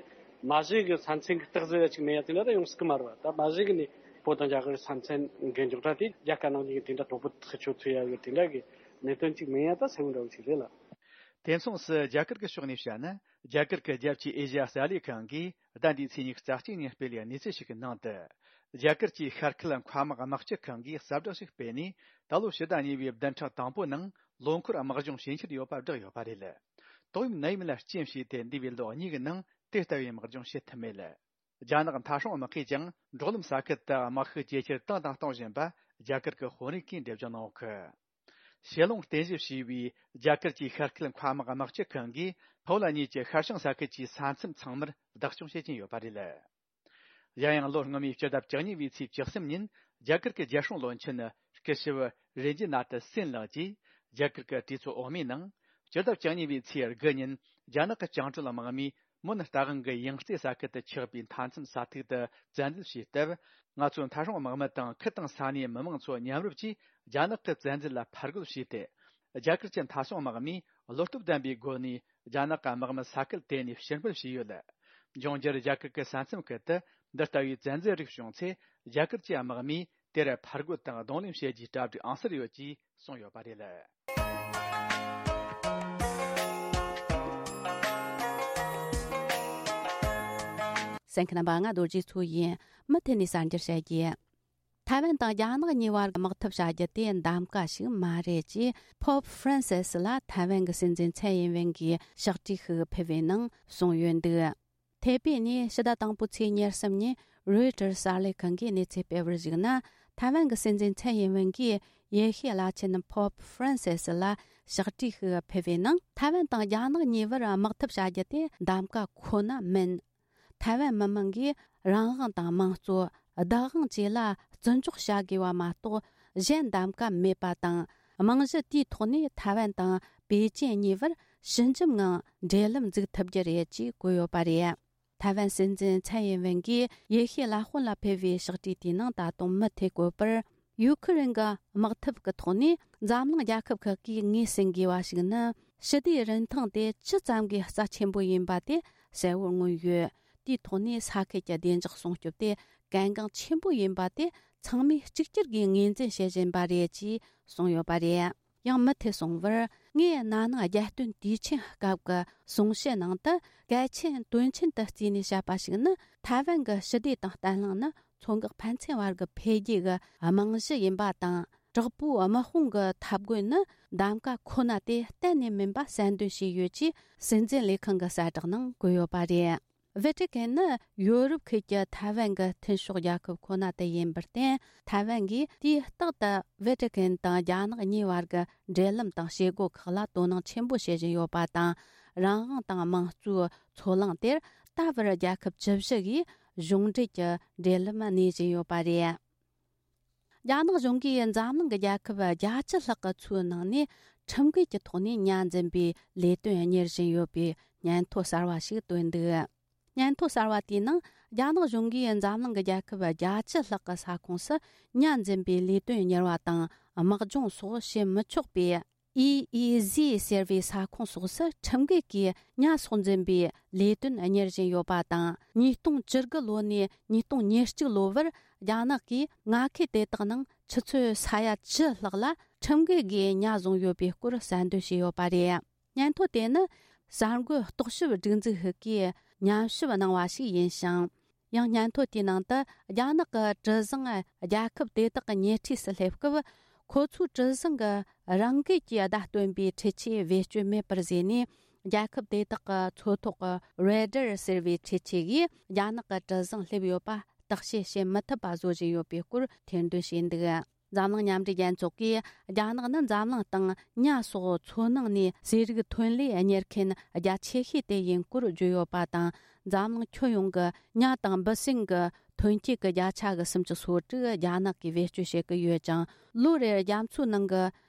མ་གཞི་གི་ས་མཚམས་གི་རྟགས་གསལ་ཡ་ཅིག་མེད་ཡ་དེ་འདྲ་ད་ཡོང་སྲིད་གི་མ་རེད་བ། ད་མ་གཞི་གི་ནས་བོད་དང་རྒྱ་གར་ས་མཚམས་གི་རྙོག་དྲ་དེ་རྒྱ་དཀར་ནག་གཉིས་ཀ་དེ་འདྲ་དོག་པོ་ཐག་ཆོད་ཐུབ་ཡ་གི་དེ་འདྲ་གི་གནད་དོན་ཅིག་མེད་ཡ་ད་གསལ་བོ་འདྲ་བོ་ཅིག་རེད་ལ། དེ་མཚུངས་སུ་རྒྱ་གར་གྱི་ཕྱོགས་ནས་བཤད་ན། རྒྱ་གར་གྱི་རྒྱལ་སྤྱིའི་ཨེ་ཤ་ཡ་གསར་ལས་ཁང་གིས་ཟླ་འདིའི་ཚེས་ཉི་ཤུ་རྩ་གཅིག་ཉིན་སྤེལ་བའི་གནས་ཚུལ་ཞིག་གི་ནང་དུ། རྒྱ་གར་གྱི་ཤར་ཁུལ་མཁའ་དམག་དམག་སྤྱི་ཁང་གིས་གསལ་བསྒྲགས་ཤིག་སྤེལ་ནས། ད་ལོ་ཕྱི་ཟླ་གཉིས་པའི་བདུན་ཕྲག་དང་པོའི་ནང་ལོ་འཁོར་དམག་སྦྱོང་བྱེད་འཆར་ཡོད་པ་བསྒྲགས་ཡོད་པ་རེད། ཏོག་དབྱིབས་ནད་ཡམས་ལ་རྐྱེན་བྱས་ཏེ་འདས་པའི་ལོ་གཉིས་ཀྱི་ནང་དེ་ལྟ་བུའི་དམག་སྦྱོང་བྱེད་ཐུབ་མེད། རྒྱ་ནག་མཐའ་སྲུང་དམག་ཁུལ་གྱིས་ཀྱང་འབྲོག་ལམ་ས་ཁུལ་དུ་དམག་ཤུགས་ཇེ་ཆེར་བཏང་དང་གཏོང་བཞིན་པ་རྒྱ་གར་གྱི་དཔོན་རིགས་ཀྱིས་འགྲེལ་བརྗོད་གནང་ཡོད་གི། ཞེ་ལོང་རྟེན་གཞི་བྱས་པའི་རྒྱ་གར་གྱི་ཤར་ཁུལ་མཁའ་དམག་དམག་སྤྱི་ཁང་གིས་ཕོ་ལ་གཉིས་ཀྱི་ཤར་བྱང་ས་ཁུལ་གྱི་ས་མཚམས་ཚང་མར་བདག་སྐྱོང་བྱེད་ཀྱིན་ཡོད་པ་རེད། གཞན་ཡང་ལོ་སྔོན་མའི་སྤྱི་ཟླ་བཅུ་གཉིས་པའི་ཚེས་བཅུ་གསུམ་ཉིན་རྒྱ་གར་གྱི་རྒྱལ་སྲུང་བློན་ཆེན་སྐུ་ཞབས་རེ་ཇི་ནཱ་ཐི་སིན་ལགས་ཀྱིས་རྒྱ་གར་གྱི་གྲོས་ཚོགས་འོག་མའི་ནང་སྤྱི་ཟླ་བཅུ་གཉིས་པའི་ཚེས་དགུ་ཉིན་རྒྱ་ནག་གི་བཅིངས་འགྲོལ་དམག་མིས་མོན་རྟ་དབང་གི་ཡང་རྩེ་ས་ཁུལ་དུ་ཆགས་པའི་མཐའ་མཚམས་ས་ཐིག་ཏུ་བཙན་འཛུལ་བྱས་སྟབས། ང་ཚོའི་མཐའ་སྲུང་དམག་མི་དང་ཁུལ་དང་ས་གནས་མི་མང་ཚོ་མཉམ་རུབ་ཀྱིས་རྒྱ་ནག་གི་བཙན་འཛུལ་ལ་ཕར་རྒོལ་བྱས་ཏེ། རྒྱ་གར་གྱི་མཐའ་སྲུང་དམག་མིས་བློ་སྟོབས་ལྡན་པའི་སྒོ་ནས་རྒྱ་ནག་གི་དམག་མི་ས་ཁུལ་དེ་ནས་ཕྱིར་འབུད་བྱས་ཡོད། འབྱུང་འགྱུར་རྒྱ་གར་གྱི་ས་མཚམས་ཁུལ་དུ་འདི་ལྟ་བུའི་བཙན་འཛུལ་རིགས་བྱུང་ཚེ། རྒྱ་གར་གྱི་དམག་མིས་དེར་ཕར་རྒོལ་དང་གདོང་ལེན་བྱེད་རྒྱུའི་གྲ་སྒྲིག་ཨང་གསར་ཡོད་ཅེས་གསུངས་ཡོད་པ་རེད། གསན་མཁན་རྣམ་པ། ང་རྡོ་རྗེ་མཚོ་ཡིན། མུ་མཐུད་ནས་གསར་འགྱུར་བཤད་རྒྱུ། ཐའེ་ཝན་དང་རྒྱ་ནག་གཉིས་བར་དམག་འཐབ་བྱ་རྒྱུ་དེ་གདམ་ག་ཞིག་མ་རེད་ཅེས་Pope Francis་ལ་ཐའེ་ཝན་གྱི་སྲིད་འཛིན་ཚའེ་ཡིན་ཝེན་གྱིས་ཕྱག་བྲིས་ཤིག་ཕུལ་བའི་ནང་གསུངས་ཡོད་འདུག་ཐའེ་པེ་ནས་ཕྱི་ཟླ་དང་པོའི་ཚེས་ཉེར་གསུམ་ཉིན་Reuters་གསར་ལས་ཁང་གིས་གནས་ཚུལ་སྤེལ་བར་གཞིགས་ན། ཐའེ་ཝན་གྱི་སྲིད་འཛིན་ཚའེ་ཡིན་ཝེན་གྱིས་ཡེ་ཤུའི་བླ་ཆེན་Pope Francis་ལ་ཕྱག་བྲིས་ཤིག་ཕུལ་བའི་ནང་། ཐའེ་ཝན་དང་རྒྱ་ནག་གཉིས་བར་དམག་འཐབ་བྱ་རྒྱུ་དེ་གདམ་ག་ཁོ་ན་མིན། ཐའེ་ཝན་མི་མང་གིས་རང་དབང་དང་དམངས་གཙོ། བདག་དབང་བཅས་ལ་བརྩི་འཇོག་བྱ་དགོས་པ་མ་གཏོགས། གཞན་གདམ་ག་མེད་པ་དང་། རྨང་གཞི་དེའི་ཐོག་ནས་ཐའེ་ཝན་དང་པེ་ཅིན་གཉིས་བར་ཞི་འཇམ་ངང་འབྲེལ་ལམ་འཛུགས་ཐུབ་རྒྱུ་རེད་ཅེས་བཀོད་ཡོད་པ་རེད། ཐའེ་ཝན་སྲིད་འཛིན་ཚའེ་ཡིན་ཝེན་གྱིས་ཡེ་ཤུའི་བླ་དཔོན་ལ་ཕུལ་བའི་ཕྱག་བྲིས་དེའི་ནང་ད་དུང་མུ་མཐུད་བཀོད་པར། ཡུ་ཁུ་རེན་གྱི་དམག་འཐབ་ཀྱི་ཐོག་ནས་འཛམ་གླིང་རྒྱལ་ཁབ་ཁག་གིས་ངོས་ཟིན་དགོས་པ་ཞིག་ནི། ཞི་བདེའི་རིན་ཐང་དེ་ཇི་ཙམ་གྱི་རྩ་ཆེན་པོ་ཡིན་པ་དེ་གསལ་བོར་མངོན་ཡོད། དེའི་ཐོག་ནས་ས་ཁུལ་གྱི་བདེ་འཇགས་སྲུང་སྐྱོབ་དེ་གལ་འགངས་ཆེན་པོ་ཡིན་པ་དེ་ཚང་མས་གཅིག་གྱུར་གྱིས་ངོས་འཛིན་བྱེད་བཞིན་པ་རེད་ཅེས་གསུངས་ཡོད་པ་རེད། ཡང་མུ་མཐུད་གསུངས་པར། ངས་ན་ནིང་རྒྱལ་སྟོན་དུས་ཆེན་སྐབས་ཀྱི་གསུང་བཤད་ནང་དུ་གལ་ཆེན་དོན་ཆེན་དུ་བརྩིས་ནས་བཤད་པ་ཞིག་ནི། ཐའེ་ཝན་གྱི་ཞི་བདེ་དང་བརྟན་ལྷིང་ནི་མཚོ་འགག་ཕན་ཚུན་བར་གྱི་འཕེལ་རྒྱས་ཀྱི་རྨང་གཞི་ཡིན་པ་དང་། དྲག་པོའི་དམག་དཔུང་གི་འཐབ་རྒོལ་ནི་གདམ་ག་ཁོ་ན་དེ་གཏན་ནས་མིན་པ་གསལ་འདོན་བྱས་ཡོད་ཅེས་སྲིད་འཛིན་ལས་ཁང་གི་གསལ་བསྒྲགས་ནང་བཀོད་ཡོད་པ་རེད། ཝེ་ཏི་ཀན་ནི་ཡོ་རོབ་ཁུལ་གྱི་ཐའེ་ཝན་གྱི་མཐུན་ཕྱོགས་རྒྱལ་ཁབ་ཁོ་ན་དེ་ཡིན་པར་བརྟེན། ཐའེ་ཝན་གྱིས་དུས་རྟག་ཏུ་ཝེ་ཏི་ཀན་དང་རྒྱ་ནག་གཉིས་བར་གྱི་འབྲེལ་ལམ་དང་བྱེད་སྒོ་ཁག་ལ་དོ་སྣང་ཆེན་པོ་བྱེད་བཞིན་ཡོད་པ་དང་། རང་དབང་དང་དམངས་གཙོའི་མཚོ་གླིང་དེར་ད་བར་རྒྱལ་ཁབ་བཅུ་བཞི་གིས་གཞུང་འབྲེལ་གྱི་འབྲེལ་ལམ་གནས་བཞིན་ཡོད་པ་རེད། རྒྱ་ནག་གཞུང་གིས་འཛམ་གླིང་གི་རྒྱལ་ཁབ་བརྒྱད་ཅུ་ལྷག་གི་མཚོའི་ནང་ནས་ཁྲིམས་འགལ་གྱི་ཐོག་ནས་ཉ་འཛིན་པའི་ལས་དོན་གཉེར་བཞིན་ཡོད་པའི་སྙན་ཐོ་གསར་བ་ཞིག་བཏོན་འདུག། སྙན་ཐོ་གསར་བ་དེའི་ནང་། རྒྱ་ནག་གཞུང་གིས་འཛམ་གླིང་གི་རྒྱལ་ཁབ་བརྒྱད་ཅུ་ལྷག་གི་ས་ཁོངས་སུ་ཉ་འཛིན་པའི་ལས་དོན་གཉེར་བ་དང་དམག་སྦྱོང་སོགས་བྱེད་མི་ཆོག་པའི། ཨི་ཨི་ཟི་ཟེར་བའི་ས་ཁོངས་སོགས་སུ་ཁྲིམས་འགལ་གྱིས་ཉ་སོགས་འཛིན་པའི་ལས་དོན་གཉེར་བཞིན་ཡོད་པ་དང་། ཉིས་སྟོང་བཅུ་དགུ་ལོ་ནས་ཉིས་སྟོང་ཉེར་གཅིག་ལོ་བར་རྒྱ་ནག་གིས་མངའ་ཁུལ་དེ་དག་ནང་ཆུ་ཚོད་ས་ཡ་བཅུ་ལྷག་ལ་ཁྲིམས་འགལ་སྒོས་ཉ་བཟུང་ཡོད་པའི་སྐོར་གསལ་འདོན་བྱས་ཡོད་པ་རེད། སྙན་ཐོ་དེ་ནི་གསར་འགོད་རྟོག་ཞིབ་སྒྲིག་འཛུགས་ཤིག་གིས་ཉམས་ཞིབ་གནང་བ་ཞིག་ཡིན་ཞིང་། ཡང་སྙན་ཐོ་དེའི་ནང་དུ་རྒྱ་ནག་གི་གྲུ་གཟིངས་རྒྱལ་ཁབ་དེ་དག་གི་ཉེ་འཁྲིས་སུ་སླེབས་སྐབས། ཁོ་ཚོའི་གྲུ་གཟིངས་ཀྱི་རང་འགུལ་གྱིས་བརྡ་སྟོན་པའི་འཕྲུལ་ཆས་བེད་སྤྱོད་མེད་པར་བཟོས་ནས། རྒྱལ་ཁབ་དེ་དག་གི་མཚོ་ཐོག་གི་རེ་ཌར་ཟེར་བའི་འཕྲུལ་ཆས་ཀྱིས་རྒྱ་ནག་གི་གྲུ་གཟིངས་སླེབས་ཡོད་པ་བརྟག་དཔྱད་བྱེད་མི་ཐུབ་པ་བཟོ་བཞིན་ཡོད་པའི་སྐོར་ཐེར་འདོན་བྱས་འདུག། འཛམ་གླིང་མཉམ་འབྲེལ་རྒྱལ་ཚོགས་ཀྱིས། རྒྱ་ནག་ནི་འཛམ་གླིང་སྟེང་ཉ་སོགས་མཚོ་ནང་ནས་ཟས་རིགས་ཐོན་ལས་གཉེར་མཁན་རྒྱ་ཆེ་ཤོས་དེ་ཡིན་སྐོར་བརྗོད་ཡོད་པ་དང་། འཛམ་གླིང་ཁྱོན་ཡོངས་ཀྱི་ཉ་དང་འབུ་སྲིན་གྱི་ཐོན་སྐྱེད་ཀྱི་བརྒྱ་ཆ་གི་སུམ་ཅུ་སོ་དྲུག་རྒྱ་ནག་གིས་བེད་སྤྱོད་བྱེད་ཀྱི་ཡོད་ཅིང་། ལོ་རེར་རྒྱ་མཚོའི་ནང་གི་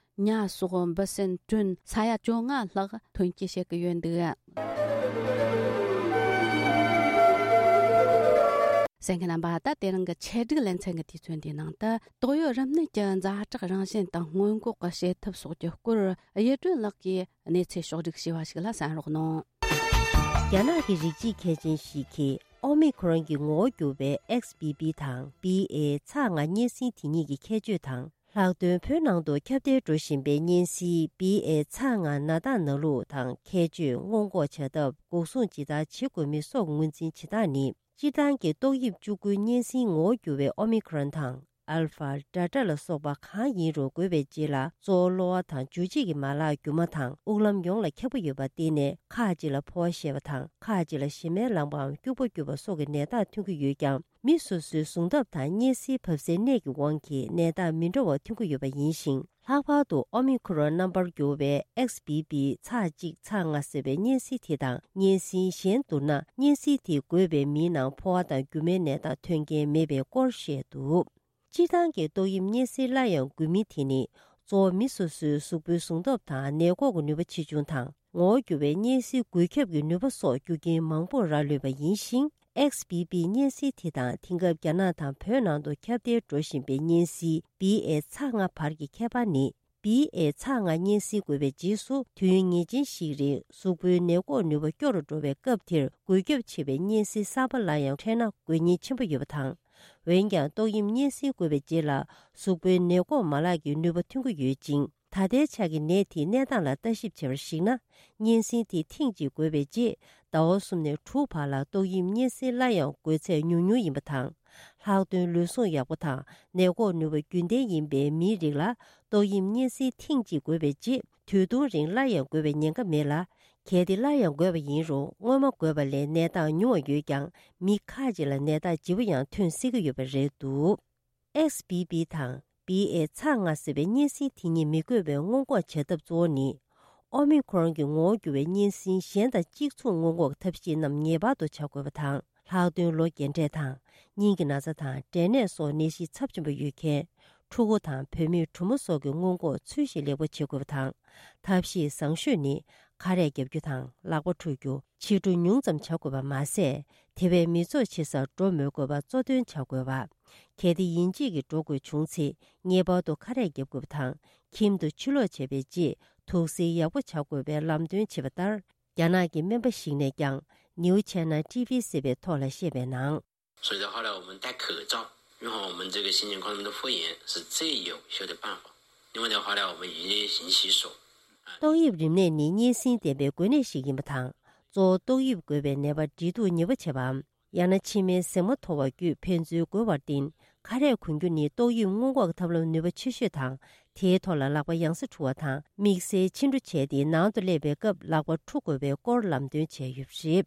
ཉ་སོགས་འབུ་སྲིན་ཊོན་ས་ཡ་བཅོ་ལྔ་ལྷག་ཐོན་སྐྱེད་བྱེད་ཀྱི་ཡོད་འདུག། གསན་མཁན་རྣམ་པ། ད་དེ་རིང་གི་ཆེད་སྒྲིག་ལེ་ཚན་གྱི་དུས་ཚོད་འདིའི་ནང་དུ། ཏོག་དབྱིབས་རིམས་ནད་ཀྱི་ཛ་དྲག་རང་བཞིན་དང་སྔོན་འགོག་གི་བྱེད་ཐབས་སོགས་ཀྱི་སྐོར་ཡིད་སྒྲོན་ལགས་ཀྱིས་གནས་ཚུལ་ཕྱོགས་སྒྲིག་བྱས་པ་ཞིག་ལ་གསན་རོགས་གནང་། རྒྱ་ནག་གི་རིགས་གཅིག་མཁས་ཅན་ཞིག་གིས་ཨོ་མི་ཁོ་རོན་གྱི་ངོ་བོ་གྱུར་བའི་ཨེག་སི་བྷི་བྷི་དང་བྷི་ཨེ་ཚ་ལྔ་གཉན་སྲིན་དེ་གཉིས་ཀྱི་ཁྱད་ཆོས་དང་། ལྷག་དོན་བོད་ནང་དུ་ཁྱབ་གདལ་འགྲོ་བཞིན་པའི་གཉན་སྲིན་བྷི་ཨེ་ཚ་ལྔ་ན་ཏ་ན་ལུག་དང་ཁྱད་ཆོས། སྔོན་འགོག་བྱ་ཐབས། འགོག་སྲུང་ཇི་ལྟར་བྱེད་དགོས་མིན་སོགས་ངོས་འཛིན་བྱེད་སྟངས་ནི། སྤྱིར་བཏང་གི་ཏོག་དབྱིབས་བཅུ་དགུའི་གཉན་སྲིན་ངོ་བོ་གྱུར་བའི་ཨོ་མི་ཁོ་རོན་དང་། ཨལ་ཕ། ཌེལ་ཊ་ལ་སོགས་པ་གང་ཡིན་རུང་འགོས་པའི་རྗེས་ལ་གཙོ་བོ་གློ་བ་དང་འཇུ་བྱེད་ཀྱི་མ་ལག་རྒྱུ་མ་དང་དབུགས་ལམ་ཡོངས་ལ་ཁྱབ་ཀྱི་ཡོད་པར་བརྟེན་ནས་ཁག་ཅིག་ལ་ཕོ་བ་བཤལ་བ་དང་ཁག་ཅིག་ལ་གཞི་མའི་ལངས་པའམ་སྐྱུག་པ་སྐྱུག་པ་སོགས་ཀྱི་ནད་རྟགས་ཐོན་གྱི་ཡོད་ཀྱང་། མི་སོ་སོའི་ཟུངས་ཐབས་དང་གཉན་སྲིན་བབས་སའི་གནས་ཀྱི་དབང་གིས་ནད་རྟགས་མི་འདྲ་བ་ཐོན་གྱི་ཡོད་པ་ཡིན་ཞིང་། ལྷག་པར་དུ་ཨོ་མི་ཁོ་རོན་རྣམ་པར་གྱུར་བའི་ཨེག་སི་བྷི་བྷི་ཚ་གཅིག་ཚ་ལྔ་ཟེར་བའི་གཉན་སྲིན་དེ་དང་གཉན་སྲིན་གཞན་བསྡུར་ན། གཉན་སྲིན་དེས་འགོས་པའི་མིའི་ནང་ཕོ་བ་དང་རྒྱུ་མའི་ནད་རྟགས་ཐོན་མཁན་མེད་པའི་སྐོར་བཤད་འདུག། སྤྱིར་བཏང་གི་ཏོག་དབྱིབས་གཉན་སྲིན་སླར་ཡང་འགོས་མིན་དེ་ནི། གཙོ་བོ་མི་སོ་སོའི་གཟུགས་པོའི་ཟུངས་སྟོབས་དང་ནད་འགོག་གི་ནུས་པ་ཆེ་ཆུང་དང་། ངོ་བོ་འགྱུར་བའི་གཉན་སྲིན་འགོས་ཁྱབ་ཀྱི་ནུས་པ་སོགས་རྒྱུ་རྐྱེན་མང་པོར་རག་ལུས་པ་ཡིན་ཞིང་། ཨེག་སི་བྷི་བྷི་གཉན་སྲིན་དེ་དང་དེང་སྐབས་རྒྱ་ནག་དང་བོད་ནང་དུ་ཁྱབ་གདལ་འགྲོ་བཞིན་པའི་གཉན་སྲིན་བྷི་ཨེ་ཚ་ལྔ་བར་གྱི་ཁྱད་པར་ནི། བྷི་ཨེ་ཚ་ལྔ་གཉན་སྲིན་འགོས་པའི་རྗེས་སུ་དུས་ཡུན་ངེས་ཅན་ཞིག་རིང་གཟུགས་པོའི་ནད་འགོག་ནུས་པ་སྐྱོ་རུ་འགྲོ་བའི་སྐབས་དེར་འགོས་ཁྱབ་ཆེ་བའི་གཉན་སྲིན་གསར་པ་ལ་ཡང་འཕྲད་ན་འགོས་ཉེན་ཆེན་པོ་ཡོད་པ་དང་། འོན་ཀྱང་ཏོག་དབྱིབས་གཉན་སྲིན་འགོས་པའི་རྗེས་ལ་གཟུགས་པོའི་ནད་འགོག་མ་ལག་གི་ནུས་པ་ཐོན་གྱི་ཡོད་ཅིང་། ད་ལྟའི་ཆ་གི་ནད་དེའི་གནས་སྟངས་ལ་ལྟ་ཞིབ་བྱས་པར་གཞིགས་ན། གཉན་སྲིན་དེ་ཐེངས་གཅིག་འགོས་པའི་རྗེས་ཟླ་བ་གསུམ་ནས་དྲུག་བར་ལ་ཏོག་དབྱིབས་གཉན་སྲིན་སླར་ཡང་འགོས་ཚད་ཉུང་ཉུང་ཡིན་པ་དང་། ལྷག་དོན་ལུས་ཟུངས་ཡག་པོ་དང་ནད་འགོག་ནུས་པ་རྒྱུན་ལྡན་ཡིན་པའི་མིའི་རིགས་ལ་ཏོག་དབྱིབས་གཉན་སྲིན་ཐེངས་གཅིག་འགོས་པའི་རྗེས་དུས་ཐུང་རིང་སླར་ཡང་འགོས་པའི་ཉེན་ཁ་མེད་ལ། གལ་ཏེ་སླར་ཡང་འགོས་པ་ཡིན་རུང་སྔོན་མ་འགོས་པ་ལས་ནད་རྟགས་ཉུང་བ་ཡོད་ཀྱང་མི་ཁག་ཅིག་ལ་ནད་རྟགས་ལྗིད་པོ་ཡང་ཐོན་སྲིད་ཀྱི་ཡོད་པ་རེད་འདུག། ཨེག་སི་བྷི་བྷི་དང་བྷི་ཨེ་ཚ་ལྔ་ཟེར་བའི་གཉན་སྲིན་དེ་གཉིས་མི་འགོས་པའི་སྔོན་འགོག་བྱ་ཐབས་གཙོ་བོ་ནི། ཨོ་མི་ཁོ་རོན་གྱི་ངོ་བོ་འགྱུར་བའི་གཉན་སྲིན་གཞན་དང་གཅིག་མཚུངས་སྔོན་འགོག་ཐབས་ཤེས་རྣམས་ངེས་པར་དུ་བྱ་དགོས་པ་དང་། ལྷག་དོན་ལོ་རྒན་གྲས་དང་། སྙིང་གི་ན་ཚ་དང་འབྲས་ནད་སོགས་ནད་གཞི་ཚབས་ཆེན་པོ་ཡོད་མཁན། ཕྲུ་གུ་དང་བུད་མེད་གྲུ་མོ་སོགས་ཀྱི་སྔོན་འགོག་ཚུལ་བཞིན་ལེགས་པོ་བྱེད་དགོས་པ་དང་། ཐབས་ཤེས་བཟང་ཤོས་ནི། ཁ་རས་བརྒྱབ་རྒྱུ་དང་ལག་པ་འཁྲུ་རྒྱུ། ཕྱི་འགྲོ་ཉུང་ཙམ་བྱ་དགོས་པ་མ་ཟད། དེ་བས་མི་ཚོགས་ཆེ་སར་འགྲོ་མི་དགོས་པ་གཙོ་འདོན་བྱ་དགོས་པ། གལ་ཏེ་ཡིན་གཅིག་གིས་འགྲོ་དགོས་བྱུང་ཚེ་ངེས་པར་དུ་ཁ་རས་བརྒྱབ་དགོས་པ་དང་། ཁྱིམ་དུ་ཕྱིར་ལོག་བྱས་པའི་རྗེས་ དུག་སེལ་ཡག་པོ་བྱ་དགོས་པའི་ལམ་སྟོན་བྱས་པ་ལྟར། རྒྱ་ནག་གི་སྨན་པ་ཞིག་ནས་ཀྱང་ནིའུ་ཆེ་ན་ཊི་ཝི་ཟེར་བའི་ཐོག་ལ་བཤད་པའི་ནང་། 所以到后来我们戴口罩，用好我们这个新型冠状病毒复原是最有效的办法。另外的话呢，我们一律勤洗手。 ཏོག་དབྱིབས་རིམས་ནད་ནི་གཉན་སྲིན་ལྡན་པའི་འགོས་ནད་ཞིག་ཡིན་པ་དང་། གཙོ་བོ་ཏོག་དབྱིབས་འགོས་པའི་ནད་པ་འབྲེལ་གཏུག་ནུས་པ་ཆེ་བའམ། ཡང་ན་མཆིལ་མའི་ཟེགས་མ་མཐོ་བ་བརྒྱུད་ཕན་ཚུན་འགོས་པར་བརྟེན། ཁ་རས་གོན་རྒྱུ་ནི་ཏོག་དབྱིབས་སྔོན་འགོག་ཐབས་ལམ་ནུས་པ་ཆེ་ཤོས་དང་། དེའི་ཐོག་ལ་ལག་པ་ཡང་སེ་འཁྲུ་བ་དང་། དམིགས་བསལ་ཕྱི་འགྲོ་བྱས་ཏེ་ནང་དུ་སླེབས་པའི་སྐབས་ལག་པ་འཁྲུ་དགོས་པའི་སྐོར་ལམ་སྟོན་བྱས་ཡོད་པ་རེད།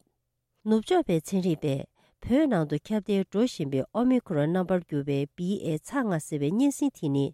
ནུབ་ཕྱོགས་པའི་ཚན་རིག་པས། བོད་ནང་དུ་ཁྱབ་གདལ་འགྲོ་བཞིན་པའི་ཨོ་མི་ཁོ་རོན་རྣམ་པར་གྱུར་པའི་བི་ཨེ་ཚ་ལྔ་ཟེར་བའི་གཉན་སྲིན་དེ་ནི།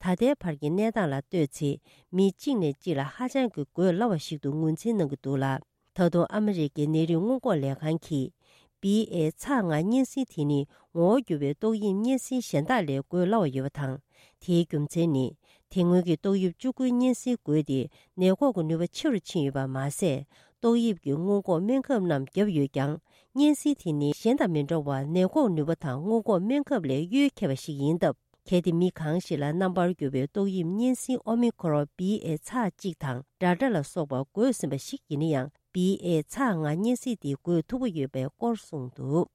ད་ལྟའི་བར་གྱི་གནས་སྟངས་ལ་ལྟོས་ཚེ། མི་གཅིག་ནས་གཅིག་ལ་ཧ་ཅང་གི་འགོས་སླ་བ་ཞིག་ཏུ་ངོས་འཛིན་གནང་གི་འདུག་ལ། ད་དུང་ཨ་མི་རི་ཀའི་ནད་རིགས་སྔོན་འགོག་ལས་ཁང་གིས། བི་ཨེ་ཚ་ལྔ་གཉན་སྲིན་དེ་ནི་ངོ་བོ་འགྱུར་བའི་ཏོག་དབྱིབས་གཉན་སྲིན་གཞན་དག་ལས་འགོས་སླ་བ་ཡོད་པ་དང་། དེའི་རྒྱུ་མཚན་ནི། དེ་སྔོན་གྱི་ཏོག་དབྱིབས་བཅུ་དགུའི་གཉན་སྲིན་འགོས་ཏེ་ནད་འགོག་གི་ནུས་པ་ཆེ་རུ་ཕྱིན་ཡོད་པ་མ་ཟད། ཏོག་དབྱིབས་ཀྱི་སྔོན་འགོག་སྨན་ཁབ་རྣམས་བརྒྱབ་ཡོད་ཀྱང་། གཉན་སྲིན་དེ་ནི་གཞན་དང་མི་འདྲ་བར་ནད་འགོག་ནུས་པ་དང་སྔོན་འགོག་སྨན་ཁབ་ལས་གཡོལ་ཁྱད་པ་ཞིག་ཡིན་སྟབས། གལ་ཏེ་མི་གང་ཞིག་ལ་རྣམ་པར་གྱུར་པའི་ཏོག་དབྱིབས་གཉན་སྲིན་ཨོ་མི་ཁོ་རོན་བི་ཨེ་ཚ་གཅིག་དང་ཌལ་ཊ་ལ་སོགས་པ་འགོས་ཟིན་པ་ཞིག་ཡིན་ན་ཡང་། བི་ཨེ་ཚ་ལྔ་གཉན་སྲིན་དེ་འགོས་ཐུབ་ཀྱི་ཡོད་པའི་སྐོར་གསུངས་འདུག་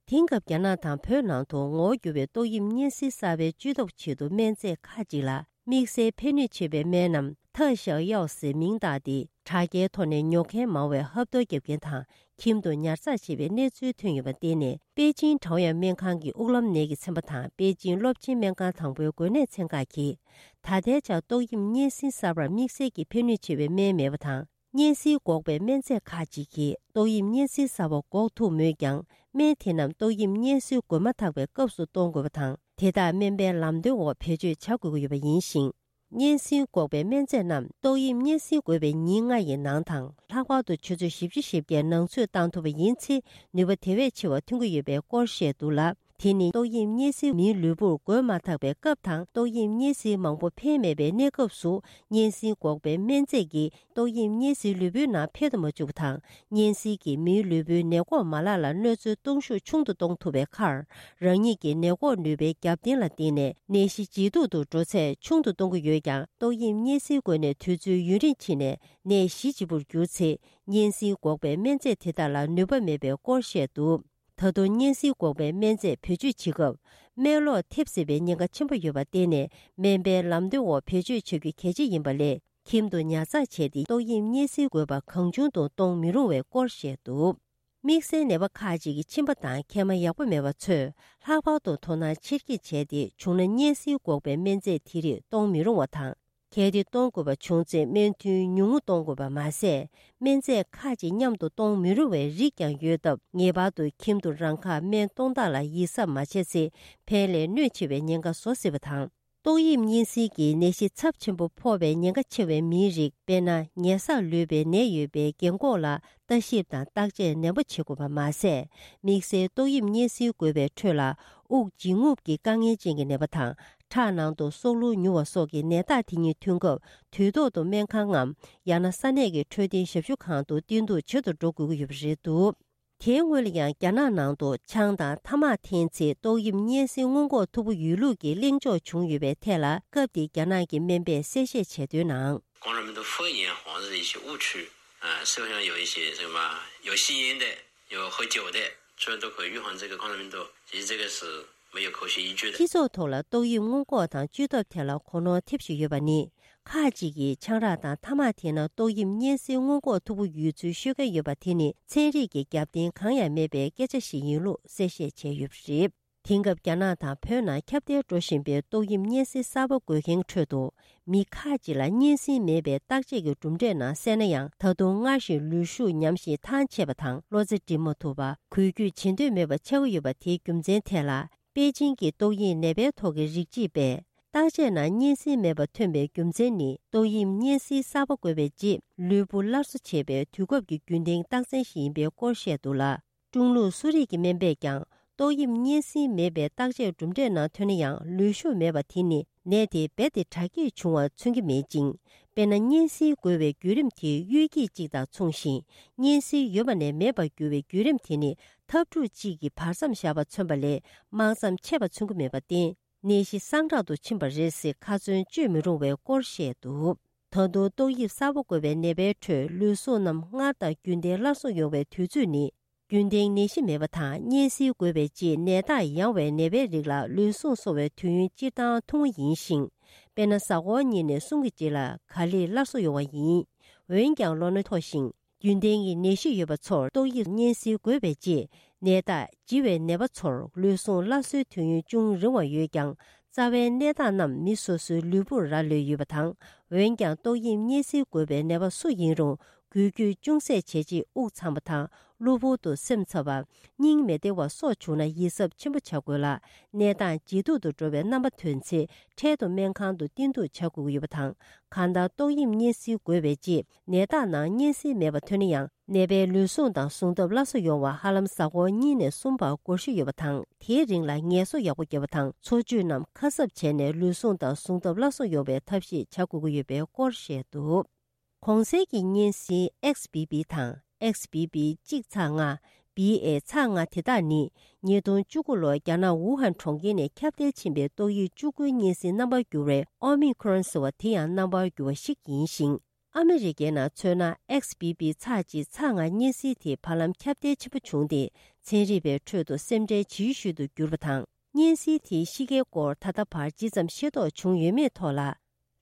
དེང་སྐབས་རྒྱ་ནག་དང་བོད་ནང་དུ་ངོ་བོ་འགྱུར་བའི་ཏོག་དབྱིབས་གཉན་སྲིན་གསར་པའི་བཅོས་ཐབས་ཆེད་དུ་སྨན་རྫས་ཁག་ཅིག་ལ་དམིགས་བསལ་ཕན་ནུས་ཆེ་བའི་སྨན་ནམ་特效药ཟེར་མིང་བཏགས་ཏེ། དྲ་རྒྱའི་ཐོག་ནས་ཉོ་མཁན་མང་བས་ཧབ་ཐོབ་བརྒྱབ་མཁན་དང་ཁྱིམ་དུ་ཉར་ཚགས་བྱས་པའི་གནས་ཚུལ་ཐོན་ཡོད་པར་བརྟེན་ནས། པེ་ཅིང་ཀྲའོ་ཡན་སྨན་ཁང་གི་དབུགས་ལམ་ནད་ཀྱི་ཚན་པ་དང་པེ་ཅིང་སློབ་ཆེན་སྨན་ཁང་དང་པོའི་འགོས་ནད་ཚན་ཁག་གིས། ད་ལྟའི་ཆར་ཏོག་དབྱིབས་གཉན་སྲིན་གསར་པར་དམིགས་བསལ་གྱི་ཕན་ནུས་ཆེ་བའི་སྨན་མེད་པ་དང་། གཉན་སྲིན་འགོག་པའི་སྨན་རྫས་ཁག་ཅིག་གིས་ཏོག་དབྱིབས་གཉན་སྲིན་གསར་པ་འགོག་ཐུབ་མོད་ཀྱང་། སྨན་དེ་རྣམས་ཏོག་དབྱིབས་གཉན་སྲིན་འགོས་མ་ཐག་པའི་སྐབས་སུ་གཏོང་དགོས་པ་དང་། དེ་དག་སྨན་པའི་ལམ་སྟོན་འོག་བེད་སྤྱོད་བྱ་དགོས་ཀྱི་ཡོད་པ་ཡིན་ཞིང་། གཉན་སྲིན་འགོག་པའི་སྨན་རྫས་རྣམས་ཏོག་དབྱིབས་གཉན་སྲིན་འགོས་པའི་ཉིན་ལྔ་ཡི་ནང་དང་། ལྷག་པར་དུ་ཆུ་ཚོད་བཞི་བཅུ་ཞེ་བརྒྱད་ནང་ཚུད་བཏང་ཐུབ་པ་ཡིན་ཚེ། ནུས་པ་དེ་བས་ཆེ་བ་ཐོན་གྱི་ཡོད་པའི་སྐོར་བཤད་འདུག་ལ། དེ་ནི་ཏོག་དབྱིབས་གཉན་སྲིན་མིའི་ལུས་པོར་འགོས་མ་ཐག་པའི་སྐབས་དང་། ཏོག་དབྱིབས་གཉན་སྲིན་མང་པོ་འཕེལ་མེད་པའི་གནས་སྐབས་སུ། གཉན་སྲིན་འགོག་པའི་སྨན་རྫས་ཀྱིས་ཏོག་དབྱིབས་གཉན་སྲིན་ལུས་པོའི་ནང་འཕེལ་དུ་མ་བཅུག་པ་དང་། གཉན་སྲིན་གྱིས་མིའི་ལུས་པོའི་ནད་འགོག་མ་ལག་ལ་གནོད་འཚེ་གཏོང་ཤུགས་ཆུང་དུ་གཏོང་ཐུབ་པའི་ཁར། རང་ཉིད་ཀྱི་ནད་འགོག་ནུས་པའི་རྒྱབ་རྟེན་ལ་བརྟེན་ནས་ནད་གཞི་ཇེ་སྡུག་ཏུ་འགྲོ་ཚད་ཆུང་དུ་གཏོང་གི་ཡོད་ཀྱང་། ཏོག་དབྱིབས་གཉན་སྲིན་འགོས་ནས་དུས་ཚོད་ཡུན་རིང་ཕྱིན་ནས་ནད་གཞི་ལྗིད་པོར་གྱུར་ཚེ། གཉན་སྲིན་འགོག་པའི་སྨན་རྫས་དེ་དག་ལ་ནུས་པ་མེད་པའི་སྐོར་བཤད་འདུག་ད་དུང་གཉན་སྲིན་འགོག་པའི་སྨན་རྫས་བེད་སྤྱོད་བྱེད་སྐབས། སྨན་ལོག་ཐེབས་སྲིད་པའི་ཉེན་ཁ་ཆེན་པོ་ཡོད་པར་བརྟེན་ནས། སྨན་པའི་ལམ་སྟོན་འོག་བེད་སྤྱོད་བྱ་རྒྱུ་གལ་ཆེ་ཡིན་པ་ལས། ཁྱིམ་དུ་ཉར་ཚགས་བྱས་ཏེ། ཏོག་དབྱིབས་གཉན་སྲིན་འགོས་པ་གང་བྱུང་དུ་གཏོང་མི་རུང་བའི་སྐོར་བཤད་འདུག་དམིགས་བསལ་ནད་པ་ཁག་ཅིག་གི་མཆིན་པ་དང་མཁལ་མ་ཡག་པོ་མེད་པ་ཚོས། ལྷག་པར་དུ་དོ་སྣང་ཆེར་བསྐྱེད་བྱས་ཏེ། བྱུང་ན་གཉན་སྲིན་འགོག་པའི་སྨན་རྫས་དེ་རིགས་གཏོང་མི་རུང་བ་དང་། གལ་ཏེ་གཏོང་དགོས་པ་བྱུང་ཚེ། སྨན་ཐུན་ཉུང་ངུ་གཏོང་དགོས་པ་མ་ཟད། སྨན་རྫས་ཁག་ཅིག་མཉམ་དུ་གཏོང་མི་རུང་བའི་རིགས་ཀྱང་ཡོད་སྟབས། ངེས་པར་དུ་ཁྱིམ་དུ་རང་ཁ་སྨན་གཏོང་སྟངས་ལ་ཡིད་གཟབ་མ་བྱས་ཚེ། ཕན་ལས་གནོད་ཆེ་བའི་ཉེན་ཁ་བཟོ་སྲིད་པ་དང་། ཏོག་དབྱིབས་གཉན་སྲིན་གྱི་ནད་གཞི་ཚབས་ཆེན་པོ་ཕོག་པའི་ཉེན་ཁ་ཆེ་བའི་མིའི་རིགས། དཔེར་ན། ཉེ་སར་ལུས་པའི་ནད་ཡོད་པའི་རྒན་འཁོགས་ལ་ལྟ་ཞིབ་དང་བརྟག་དཔྱད་ནན་པོ་བྱེད་དགོས་པ་མ་ཟད། དམིགས་བསལ་ཏོག་དབྱིབས་གཉན་སྲིན་འགོས་པའི་ཁྲོད་ལ། དབུགས་འབྱིན་རྔུབ་ཀྱི་དཀའ་ངལ་ཅན་གྱི་ནད་པ་དང་། ཁྲག་ནང་དུ་སྲོག་རླུང་ཉུང་བ་སོགས་ཀྱི་ནད་རྟགས་དེ་གཉིས་ཐོན་སྐབས། དུས་ཐོག་ཏུ་སྨན་ཁང་ངམ། ཡང་ན་ས་གནས་ཀྱི་འཕྲོད་བསྟེན་ཞབས་ཞུ་ཁང་དུ་བསྟེན་གཏུག་བྱེད་དུ་འགྲོ་དགོས་ཀྱི་ཡོད་པ་རེད་འདུག་དེའི་སྔོན་ལ་ཡང་། རྒྱ་ནག་ནང་དུ་ཆང་དང་ཐ་མག་འཐེན་ཚེ། ཏོག་དབྱིབས་གཉན་སྲིན་སྔོན་འགོག་ཐུབ་པོ་ཡོད་ལུགས་ཀྱི་གླེང་ཕྱོགས་བྱུང་ཡོད་པའི་ཐད་ལ། སྐབས་དེའི་རྒྱ་ནག་གི་སྨན་པས་གསལ་བཤད་བྱས་དོན་ནང་། 冠状病毒复阳好像是一些误区，啊，社会上有一些什么有吸烟的，有喝酒的，这都可以预防这个冠状病毒，其实这个是没有科学依据的。 སྤྱི་ཚོགས་ཐོག་ལ་ཏོག་དབྱིབས་སྔོན་འགོག་དང་བཅོས་ཐབས་ཐད་ལ་གོ་ནོར་ཐེབས་བཞིན་ཡོད་པ་ནི། ཁག་ཅིག་གིས་ཆང་རག་དང་ཐ་མག་འཐེན་ན་ཏོག་དབྱིབས་གཉན་སྲིན་སྔོན་འགོག་ཐུབ་པོ་ཡོད་ཚུལ་ཤོད་མཁན་ཡོད་པ་དེ་ནི། ཚན་རིག་གི་རྒྱབ་རྟེན་གང་ཡང་མེད་པའི་སྐད་ཆ་ཞིག་ཡིན་ལུགས་གསལ་བཤད་བྱས་ཡོད་པ་རེད། དེང་སྐབས་རྒྱ་ནག་དང་བོད་ནང་ཁྱབ་གདལ་འགྲོ་བཞིན་པའི་ཏོག་དབྱིབས་གཉན་སྲིན་གསར་པ་འགོས་མཁན་ཁྲོད་དུ། མི་ཁག་ཅིག་ལ་གཉན་སྲིན་མེད་པའི་བརྟག་དཔྱད་ཀྱི་གྲུབ་འབྲས་ནང་གསལ་ན་ཡང་། ད་དུང་སྔར་བཞིན་ལུས་ཤུགས་ཉམས་ཤིང་ཐང་ཆད་པ་དང་། བློ་རྩེ་སྒྲིམ་མ་ཐུབ་པ། འགུལ་སྐྱོད་བྱེད་འདོད་མེད་པ་ཆགས་ཀྱི་ཡོད་པ། དེའི་རྒྱུ་མཚན་ཐད་ལ། པེ་ཅིང་གི་ཏོག་དབྱིབས་ནད་པའི་ཐོག་གི་རིགས་དཔྱད་པས། བརྟག་དཔྱད་ནང་གཉན་སྲིན་མེད་པ་ཐོན་པའི་རྒྱུ་མཚན་ནི། ཏོག་དབྱིབས་གཉན་སྲིན་གསར་པ་འགོས་པའི་རྗེས། ལུས་པོ་སླར་གསོ་བྱེད་པའི་དུས་སྐབས་ཀྱི་རྒྱུན་ལྡན་རྟགས་མཚན་ཞིག་ཡིན་པའི་སྐོར་བཤད་འདུག་ལ། ཀྲུང་ལུགས་སུ་རིག་གི་སྨན་པས་ཀྱང་། ཏོག་དབྱིབས་གཉན་སྲིན་མེད་པའི་བརྟག་དཔྱད་གྲུབ་འབྲས་ནང་ཐོན་ན་ཡང་། ལུས་ཤུགས་མེད་པ་དེ་ནི་ནད་དེ་རྦད་དེ་དྲག་སྐྱེད་བྱུང་བ་མཚོན་གྱི་མེད་ཅིང་། དཔེར་ན། གཉན་སྲིན་འགོས་པའི་བརྒྱུད་རིམ་དེ་གཡོ་སྐྱིད་ཅིག་དང་མཚུངས་ཤིང་། གཉན་སྲིན་ཡོད་པ་ནས་མེད་པར་འགྱུར་བའི་བརྒྱུད་རིམ་དེ་ནི། འཐབ་འཁྲུག་ཅིག་གི་བར་མཚམས་བཞག་པ་མཚོན་པ་ལས། དམག་མཚམས་ཆད་པ་མཚོན་གྱི་མེད་པར་བརྟེན། ནད་གཞི་སངས་དྲག་ཏུ་ཕྱིན་པ་རེད་ཟེར་ཁ་ཚོན་གཅོད་མི་རུང་བའི་སྐོར་བཤད་འདུག་ད་དུང་ཏོག་དབྱིབས་གསར་པ་འགོས་པའི་ནད་པའི་ཁྲོད་ལུས་ཟུངས་རྣམས་སྔར་དང་རྒྱུན་ལྡན་སླར་གསོ་ཡོང་བའི་དུས་ཚོད་ནི། རྒྱུན་ལྡན་ནད་གཞི་མེད་པ་དང་གཉན་སྲིན་འགོས་པའི་རྗེས་ནད་རྟགས་ཡང་བའི་ནད་པའི་རིགས་ལ་ལུས་ཟུངས་གསོ་བའི་དུས་ཡུན་སྤྱིར་བཏང་ཐུང་ངུ་ཡིན་ཞིང་། དཔེར་ན་གཟའ་འཁོར་གཉིས་ནས་གསུམ་གྱི་རྗེས་ལ་ག་ལེར་སླར་གསོ་ཡོང་བ་ཡིན། འོན་ཀྱང་ལོ་ན་མཐོ་ཞིང་རྒྱུན་ལྡན་གྱི་ནད་གཞི་ཡོད་པ་ཚོར་ཏོག་དབྱིབས་གཉན་སྲིན་འགོས་པའི་རྗེས་ནད་རྟགས་ལྗི་བའི་ནད་པ་ཚོར་ལུས་ཟུངས་སླར་གསོའི་དུས་ཡུན་ཅུང་རིང་བ་ཡོད་ཀྱང་། རྩ་བའི་ནད་རྟགས་རྣམས་མི་སོ་སོའི་ལུས་པོར་རག་ལས་ཡོད་པ་དང་། འོན་ཀྱང་ཏོག་དབྱིབས་གཉན་སྲིན་འགོས་པའི་ནད་པ་སུ་ཡིན་རུང་། འགུལ་སྐྱོད་ཅུང་ཟད་བྱས་རྗེས་དབུགས་འཚམ་པ་དང་གློ་བུར་དུ་སེམས་འཚབ་པ། སྙིང་མི་བདེ་བ་སོགས་བྱུང་ན་ཡིད་གཟབ་ཆེན་པོ་བྱ་དགོས་ལ། གནས་སྟངས་ཇེ་སྡུག་ཏུ་འགྲོ་བའི་རྣམ་པ་ཐོན་ཚེ་འཕྲལ་དུ་སྨན་ཁང་དུ་བསྟེན་གཏུགས་བྱ་དགོས་ཀྱི་ཡོད་པ་དང་། གང་ལྟར་ཏོག་དབྱིབས་གཉན་སྲིན་འགོས་པའི་རྗེས་ནད་རྟགས་ནང་གཉན་སྲིན་མེད་པ་ཐོན་ན་ཡང་། ནད་པའི་ལུས་ཟུངས་དང་ཟུངས་སྟོབས་སླར་གསོ་ཡོང་བར་ཧ་ལམ་གཟའ་འཁོར་གཉིས་ནས་གསུམ་བར་འགོར་ཤུགས་ཡོད་པ་དང་། དེའི་རིང་ལ་ངལ་གསོ་ཡག་པོ་བརྒྱབ་པ་དང་འཚོ་བཅུད་རྣམས་ཁ་གསབ་བྱས་ནས་ལུས་ཟུངས་དང་ཟུངས་སྟོབས་སླར་གསོ་ཡོང་བའི་ཐབས་ཤེས་བྱ་དགོས་ཀྱི་ཡོད་པའི་སྐོར་བཤད་འདུག་གོང་གསལ་གྱི་གཉན་སྲིན་ཨེག་སི་བི་བི་དང་ཨེག་སི་བི་བི་གཅིག་ཚེག་ལྔ། བི་ཨེ་ཚེག་ལྔ་དེ་དག་ནི་ཉིས་སྟོང་བཅུ་དགུ་ལོར་རྒྱ་ནག་ཝུ་ཧན་གྲོང་ཁྱེར་ནས་ཁྱབ་གདལ་ཕྱིན་པའི་ཏོག་དབྱིབས་བཅུ་དགུའི་གཉན་སྲིན་རྣམ་པར་གྱུར་བའི་ཨོ་མི་ཁོ་རོན་ཟེར་བ་དེ་ཡང་རྣམ་པར་གྱུར་བ་ཞིག་ཡིན་ཞིང་། ཨ་མི་རི་ཀའི་ནང་མཚོན་ན་ཨེག་སི་བི་བི་ཚེག་གཅིག་ཚེག་ལྔ་གཉན་སྲིན་དེ་བར་ལམ་ཁྱབ་གདལ་ཆེན་པོ་བྱུང་སྟེ། ཚན་རིག་པའི་ཁྲོད་དུ་སེམས་ཁྲལ་ཇི་ཤོས་དུ་གྱུར་པ་དང་། གཉན་སྲིན་དེའི་གཤིས་ཀའི་སྐོར་ད་ལྟ་བར་ཇི་ཙམ་ཤེས་རྟོགས་བྱུང་ཡོད་མེད་ཐོག་ལ།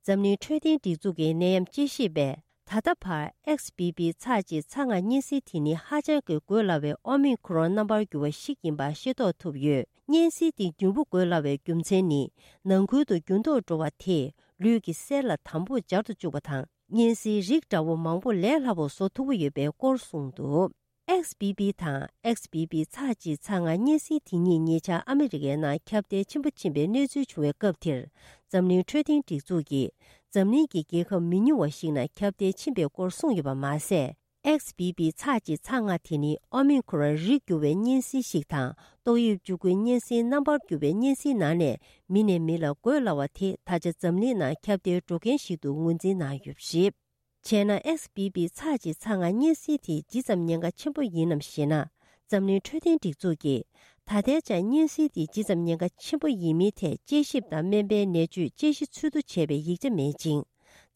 འཛམ་གླིང་འཕྲོད་བསྟེན་སྒྲིག་འཛུགས་ཀྱི་ནད་ཡམས་དཔྱད་ཞིབ་པས། ད་ལྟ་བར་ཨེག་སི་བི་བི་ཚེག་གཅིག་ཚེག་ལྔ་གཉན་སྲིན་དེ་ནི་ཧ་ཅང་གི་འགོས་སླ་བའི་ཨོ་མི་ཁོ་རོན་རྣམ་པར་འགྱུར་བ་ཞིག་ཡིན་པ་ཤེས་རྟོགས་ཐུབ་ཡོད། གཉན་སྲིན་དེ་མྱུར་པོ་འགོས་སླ་བའི་རྒྱུ་མཚན་ནི། ནང་ཁུལ་དུ་འགྱུར་ལྡོག་འགྲོ་བ་དེས་ལུས་ཀྱི་གསེར་ལ་དམ་པོར་སྦྱར་དུ་བཅུག་པ་དང་། གཉན་སྲིན་རིགས་འདྲ་བོ་མང་པོ་ལས་སླ་པོར་བཟོ་ཐུབ་ཀྱི་ཡོད་པའི་སྐོར་གསུངས་འདུག་ཨེག་སི་བི་བི་དང་ཨེག་སི་བི་བི་ཚེག་གཅིག་ཚེག་ལྔ་གཉན་སྲིན་དེ་གཉིས་ཉེ་ཆར་ཨ་མི་རི་ཀའི་ནང་ཁྱབ་གདལ་ཆེན་པོ་ཕྱིན་པའི་གནས་ཚུལ་བྱུང་བའི་སྐབས་དེར། འཛམ་གླིང་འཕྲོད་བསྟེན་སྒྲིག་འཛུགས་ཀྱིས། འཛམ་གླིང་གི་རྒྱལ་ཁབ་མི་ཉུང་བ་ཞིག་ནང་ཁྱབ་གདལ་ཕྱིན་པའི་སྐོར་གསུངས་ཡོད་པ་མ་ཟད། ཨེག་སི་བི་བི་ཚེག་གཅིག་ཚེག་ལྔ་དེ་ནི་ཨོ་མི་ཁོ་རོན་རིགས་འགྱུར་བའི་གཉན་སྲིན་ཞིག་དང་། ཏོག་དབྱིབས་བཅུ་དགུའི་གཉན་སྲིན་རྣམ་པར་འགྱུར་བའི་གཉན་སྲིན་ནང་ནས་མི་ནས་མི་ལ་འགོས་སླ་བ་དེ་ད་ཆ་འཛམ་གླིང་ནང་ཁྱབ་གདལ་འགྲོ་མཁན་ཞིག་ཏུ་ངོས་འཛིན་གནང་ཡོད་པ་རེད། བྱས་ན་ཨེག་སི་བི་བི་ཚེག་གཅིག་ཚེག་ལྔ་གཉན་སྲིན་དེ་ཇི་ཙམ་ཉེན་ཁ་ཆེན་པོ་ཡིན་ནམ་ཞེ་ན། འཛམ་གླིང་འཕྲོད་བསྟེན་སྒྲིག་འཛུགས་ཀྱིས། ད་ལྟའི་ཆར་གཉན་སྲིན་དེ་ཇི་ཙམ་ཉེན་ཁ་ཆེན་པོ་ཡིན་མིན་ཐད་དཔྱད་ཞིབ་དང་སྨན་པའི་ནད་བཅོས་དཔྱད་གཞི་འཚོལ་བསྡུ་བྱས་པའི་ཡིག་ཆ་མེད་ཅིང་།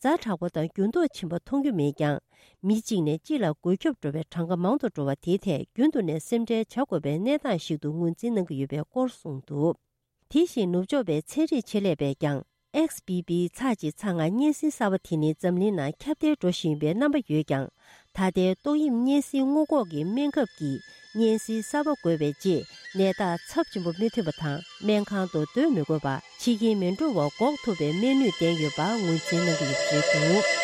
ཛ་དྲག་པོ་དང་འགྱུར་ལྡོག་ཕྱིན་པ་མཐོང་རྒྱུ་མེད་ཀྱང་། མི་གཅིག་ནས་གཅིག་ལ་འགོས་ཁྱབ་འགྲོ་བའི་གྲངས་ཀ་མང་དུ་འགྲོ་བ་དེའི་ཐད་རྒྱུན་དུ་ནས་སེམས་ཁྲལ་བྱ་དགོས་པའི་གནས་སྟངས་ཤིག་ཏུ་ངོས་འཛིན་གནང་གི་ཡོད་པའི་སྐོར་གསུངས་འདུག་དེ་བཞིན་ནུབ་ཕྱོགས་པའི་ཚན་རིག་ཆེད་ལས་པས་ཀྱང་། ཨེག་སི་བི་བི་ཚེག་གཅིག་ཚེག་ལྔ་གཉན་སྲིན་གསར་པ་དེ་ནི་འཛམ་གླིང་ནང་ཁྱབ་གདལ་འགྲོ་བཞིན་ཡོད་པའི་རྣམ་པ་ཡོད་ཀྱང་། ད་ལྟའི་ཏོག་དབྱིབས་གཉན་སྲིན་སྔོན་འགོག་གི་སྨན་ཁབ་ཀྱིས་གཉན་སྲིན་གསར་པ་འགོས་པའི་རྗེས་ནད་རྟགས་ཚབས་ཆེན་པོ་མི་ཐོན་པ་དང་སྨན་ཁང་དུ་སྡོད་མི་དགོས་པ། འཆི་རྐྱེན་མི་འགྲོ་བ་འགོག་ཐུབ་པའི་སྨན་ནུས་ལྡན་ཡོད་པ་ངོས་འཛིན་གནང་གི་ཡོད་པ་རེད་འདུག་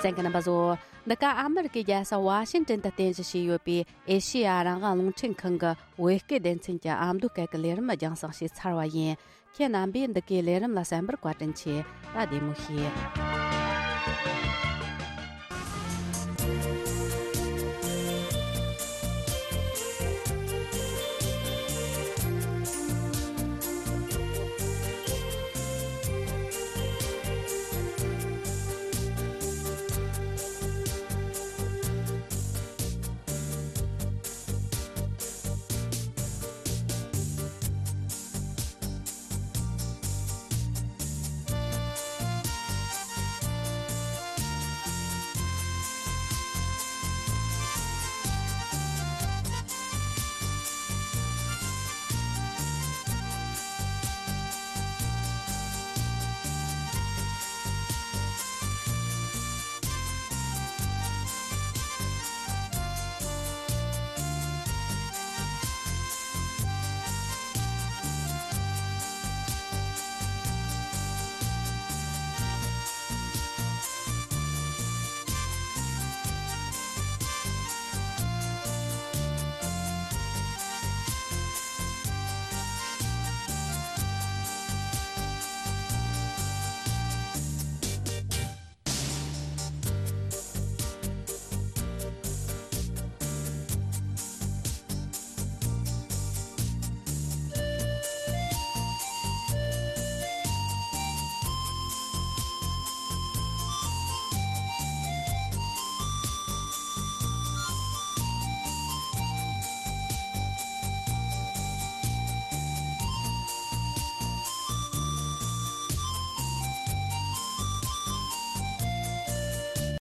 གསན་མཁན་རྣམ་པ་ཚོ། འདི་ག་ཨ་མི་རི་ཀའི་རྒྱལ་ས་ཝ་ཤིང་ཏན་དུ་རྟེན་གཞི་བྱས་ཡོད་པའི་ཨེ་ཤེ་ཡ་རང་དབང་རླུང་འཕྲིན་ཁང་གི་བོད་སྐད་སྡེ་ཚན་གྱི་ཨ་མདོ་སྐད་ཀྱི་ལས་རིམ་རྒྱང་སྲིང་བྱས་ཚར་བ་ཡིན། ཁྱེད་རྣམ་པས་འདི་གའི་ལས་རིམ་ལ་གསན་པར་བཀའ་དྲིན་ཆེ། ད་བདེ་མོ་བྱོས།